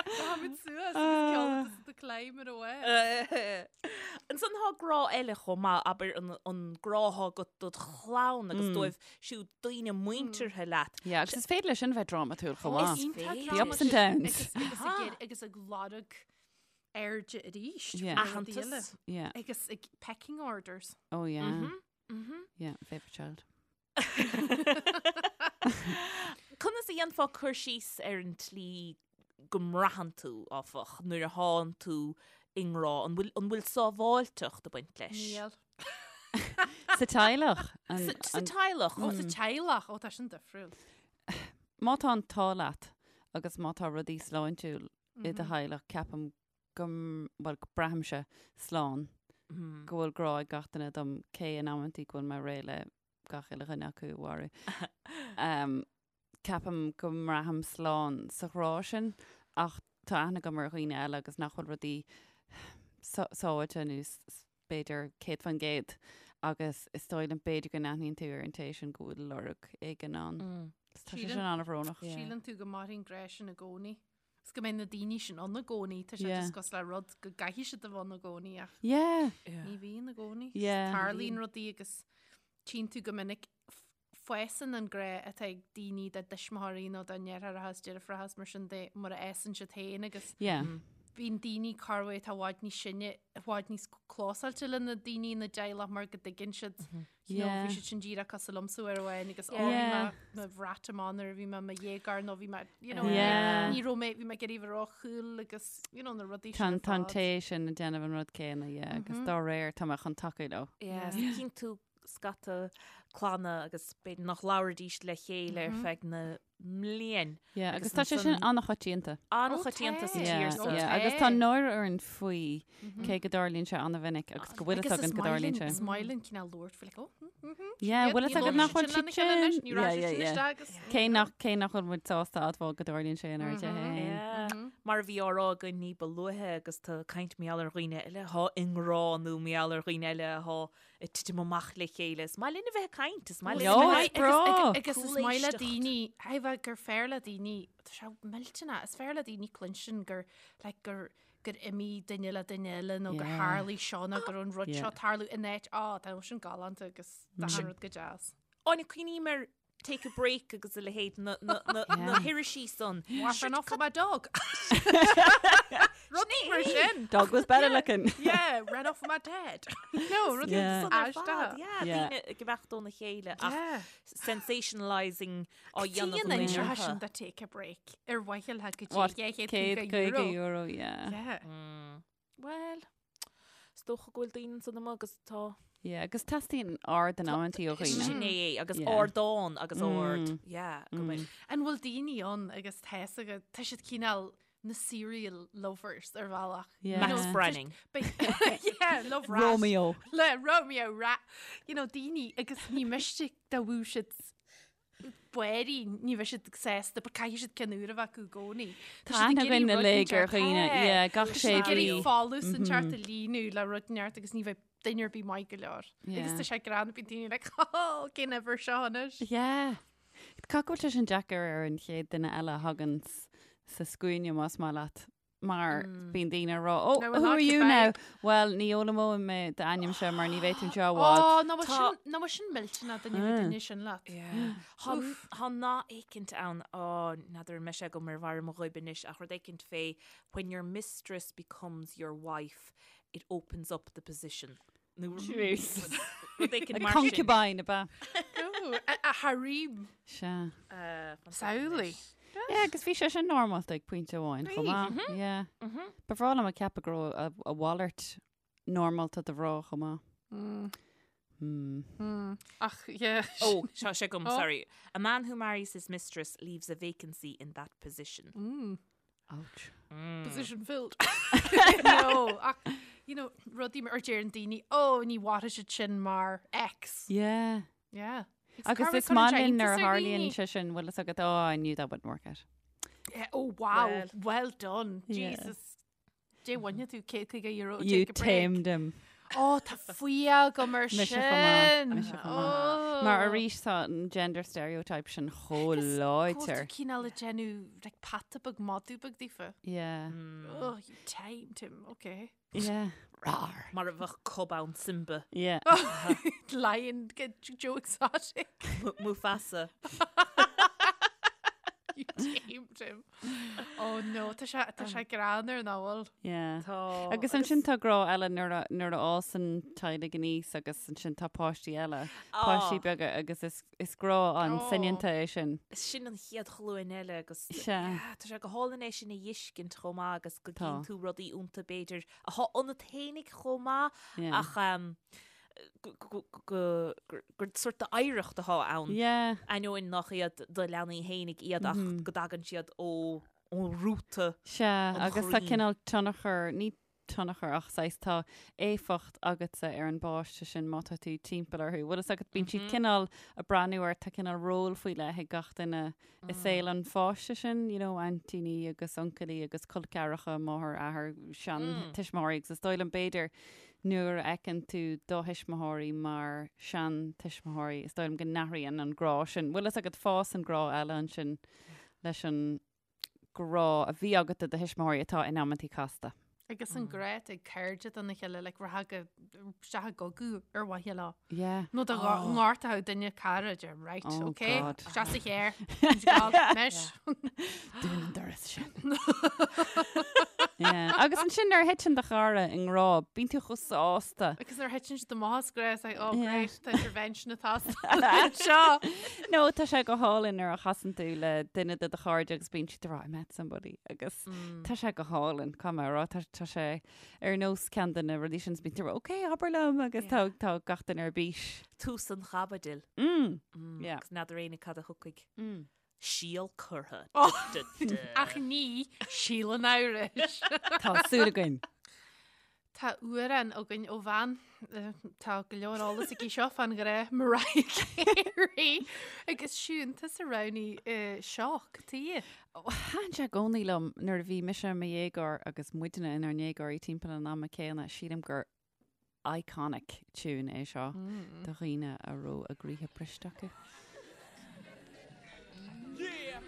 Táimid suas agus ceol the climb ar away. Ansan tá grá eile chomh maith, abair an, an grá atá agat dod chlann agus dóibh siúd daoine muinteartha leat. Yeah, agus is féidir leis sin bheith drámatúil chomh maith. Iontach The ups and downs. Agus, agus, ag, iarraidh- agus ag lorg airde arís. Yeah. faoi rudaí eile. Aitheantas. Yeah. Agus ag pecking orders. Oh yeah. Mhm. Yeah, favourite child. Conas a dhéanfá cur síos ar an tslí go mbraitheann tú, áfach, nuair a thánn tú i ngrá? An bhfuil, an bhfuil sábháilteacht ag baint leis? Níl. Sa teaghlach. An, Sa, sa an, teaghlach. Ó, sa teaghlach. Ó, tá sin difriúil. má tá an t-ádh leat agus má tá rudaí sláintiúil i do theaghlach, ceapaim go, bhuel, go braithimse slán, go bhfuil grá ag gach duine dom, cé in amantaí go bhfuil mé réidh le gach uile dhuine acu a mharú. Um, ceapaim go mbraithim slán sa ghrá sin, ach tá aithne agam ar dhaoine eile agus nach bhfuil rudaí sábháilte nó b'fhéidir 100% agus is dóigh liom b'fhéidir go n-aithníonn tú ar an té sin go bhfuil lorg éigin ann. Tá sé sin an-bhrónach. Síleann tú go mairfidh an grá sin i gcónaí. Is go mbeidh na daoine sin ann i gcónaí. Tá sé just cosúil le rud go gcaithfidh siad a bheith ann i gcónaí ach ní bhíonn i gcónaí. Tarlaíonn rudaí agus tchíonn tú go minic fásann an grá atá ag daoine dá dtuismitheoirí nó dá ndeartháireacha is deirfiúracha is mar sin de mar a fhásann siad féin agus Yeah. bíonn daoine corruair atá i bhfad níos sine, i bhfad níos clósáilte le na daoine ina dteaghlach mar go dtuigeann siad, you know, bhí siad sin díreach cosúil liomsa uair amháin agus ó, bhí mé mo bhrat amach nuair a bhí mé i mo dhéagóir nó bhí mé, you know, ní raibh mé, bhí mé ag iarraidh a bheith ró-cool agus, you know, na rudaí sin ar fad. Tá an té sin ag déanamh an rud céanna, yeah, agus dá réir tá mé chun tacú leo. Yeah, cíonn tú scata clanna agus b'fhéidir nach labhraídís le chéile ar feadh na mblian. Yeah, agus tá sé sin an-choitianta. An-choitianta sa tír so. Yeah, agus tá náire orainn faoi cé go dtarlaíonn sé an-mhinic agus go bhfuil fhios againn go dtarlaíonn sé. Is maith linn cineál labhairt faoi like, oh, mm, mm, Yeah, bhfuil fhios agat nach bhfuil siad sin. Yeah, yeah, yeah. Cé nach cé nach bhfuil muid sásta admháil go dtarlaíonn sé inár dtithe féin. Mar a bhí á rá againn ní ba luaithe agus tá caint mar gheall ar dhaoine eile atá i ngrá nó mar gheall ar dhaoine eile atá ag titim amach le chéile. Is maith linn a bheith ag caint, is maith linn a bheith ag breá. Agus is maith le daoine, heh gur fearr le daoine, tá sé millteanach, is fearr le daoine cluinstin gur, like, gur gur imigh duine le duine eile nó gur tharlaigh seo nó gur an rud seo tarlú in áit, á, tá sin galánta agus tá an rud go deas. Áine, cuimhním ar Take a Break agus a leithéid na, na, na, na hirisí san. Wife ran off with my dog. Rudaí mar sin. Dog was better looking. Yeah, ran off with my dad. No, rudaí Yeah. san ar fad. Yeah, Yeah. daoine ag imeacht óna chéile ach Yeah. sensationalising á dhéanamh Tíonn an seo sin orthu. de take a break ar mhaithe le go What, dtí €150 euro, yeah. Yeah. Well, is dócha go bhfuil daoine ansan amuigh agus tá. Yeah, agus teastaíonn aird in amantaí ó dhaoine. Sin é é, agus Yeah. ardán agus ard. Yeah, go mbeidh. An bhfuil daoine ann agus tá fhios agat, tá siad cineál na serial lovers ar bhealach. Yeah. Max Branning. Yeah, love rat. Romeo. Le Romeo rat. You know, daoine agus ní miste dá bhfuil siad b'fhéidir ní bheidh siad sásta, but caithfidh siad ceann úr a bheith acu i gcónaí. Tá aithne againn uilig ar dhaoine, yeah, gach sé mhí. Tá siad ag iarraidh folús inteacht Mhm. a líonadh le rud inteacht agus ní bheidh duine ar bith maith go leor. Agus Yeah. tá sé greannmhar bíonn daoine like, oh, cén uimhir seo anois? Yeah. Caithfidh go bhfuil sé sin deacair ar an chéad duine eile a thagann sa scuaine más maith leat. Mar bíonn daoine ag rá, oh, Now we're who are not you now? goodbye. Well, ní fhoghlaimeoidh mé d'ainmse mar ní bheidh tú anseo i bhfad. Oh, ná bhfuil sin, ná bhfuil sin millteanach duine bheith duine sin leat. Tá nath éicint ann, á, n'fheadar an mbeidh sé agam ar bharr mo ghoib anois, ach rud éicint fé when your mistress becomes your wife, it opens up the position. Nó rud éicint mar sin. Concubine, ab ea? No, a harem. Sea. Samhlaigh. Yeah, agus bhí sé sin normálta ag pointe amháin chomh maith. Yeah. Ba bhreá liom a ceapadh go raibh a mhalairt normálta do mhná chomh maith. Hmm. Ach, yeah. Oh, seo sé agam, Oh. sorry. A man who marries his mistress leaves a vacancy in that position. Ouch. Position filled. No, ach, you know, rudaí mar deireann daoine, oh, ní mhairfidh siad sin mar ex. Yeah. Yeah. Agus is maith linn nuair a tharlaíonn sé sin, bhfuil fhios agat, oh, I knew that wouldn't work out. Yeah, oh, wow. Well. Well, done. Yeah. Jesus. Dé bhaine tú €150 You take a break. tamed him. Oh, tá fuath agam air Mise chomh maith, sin. mise chomh maith. Oh. Mar arís tá an gender stereotype sin chomh láidir. Cineál ag déanamh like peata beag madadh beag daofa. Yeah. Oh, you tamed him, okay. Yeah. Rar. Mar a bheadh cub ann Simba. Yeah. Lion, get Joe Exotic. Mufasa. You tamed him. Oh no, tá sé tá sé greannmhar nach bhfuil. Yeah. Tá. Agus ansin tá grá eile nuair a nuair a fhásann teaghlaigh aníos agus ansin tá páistí eile, páistí beaga agus is is grá an Oh. soineanta é sin. Sin an chéad ghlúin eile agus Sea. yeah, tá sé go hálainn é sin a fheiscint chomh maith agus go Tá. gcíonn tú rudaí iontu b'fhéidir atá ionat fhéinig chomh maith Yeah. ach um, gur sórt d'oidhreacht atá ann. Yeah. Ainneoin nach iad do leanaí fhéinig iad ach go dtagann siad ó ó rúta. Sea, An agus tá chroí. cineál tionchar, ní tionchar ach saghas tá éifeacht agatsa ar an bpáiste sin má tá tú timpeall orthu. Bhfuil fhios agat, bíonn siad cineál ag breathnú ort, tá cineál ról faoi leith ag gach duine i saol an pháiste sin, you know, aintíní agus uncailí agus col ceathracha, máthair, athair, seantuismitheoirí agus is dóigh liom b'fhéidir Nuair a fheiceann tú do thuismitheoirí mar seantuismitheoirí, is dóigh liom go n-athraíonn an grá sin. Bhfuil fhios agat, fásann grá eile ansin leis an grá a bhí agat do do thuismitheoirí atá in amantaí casta. Agus an grá atá ag cairde dona chéile, like rachfá go isteach i gcogadh ar mhaithe leo. Yeah. Nó dá ngortódh duine cara, deir right, Oh, okay, God. isteach sa charr, anois. Dún an doras sin. Yeah. Agus ansin nuair a thiteann do chara i ngrá, bíonn tú chomh sásta. Agus nuair a thiteann siad amach as grá, it's like, oh Yeah. great, tá intervention ag teastáil anseo. No, tá sé go hálainn nuair a chasann tú le duine de do chairde agus bíonn siad ag rá, I met somebody. Agus tá sé go hálainn, caithfidh mé a rá, tá, tá sé ar nós ceann de na rudaí sin, bíonn tú ag rá, ok, abair liom, agus tá, tá gach duine ar bís. Tús an chaibidil. Mm. Yeah. Agus n'fheadar éinne cad a thiocfaidh. Síol curtha. Ach ní síol an amhrais. Tá súil againn. Tá amhrán againn ó bhean, tá go leor eolas aici seo fán ghrá, Mariah Carey. Agus Siún, tusa a roghnaigh Shock, tuige? Thaitin sé i gcónaí liom nuair a bhí mise i mo dhéagóir agus muidne inár ndéagóirí timpeall an ama céanna, sílim gur iconic tune é seo do dhaoine a raibh a gcroíthe briste acu. Yeah.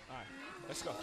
All right, let's go.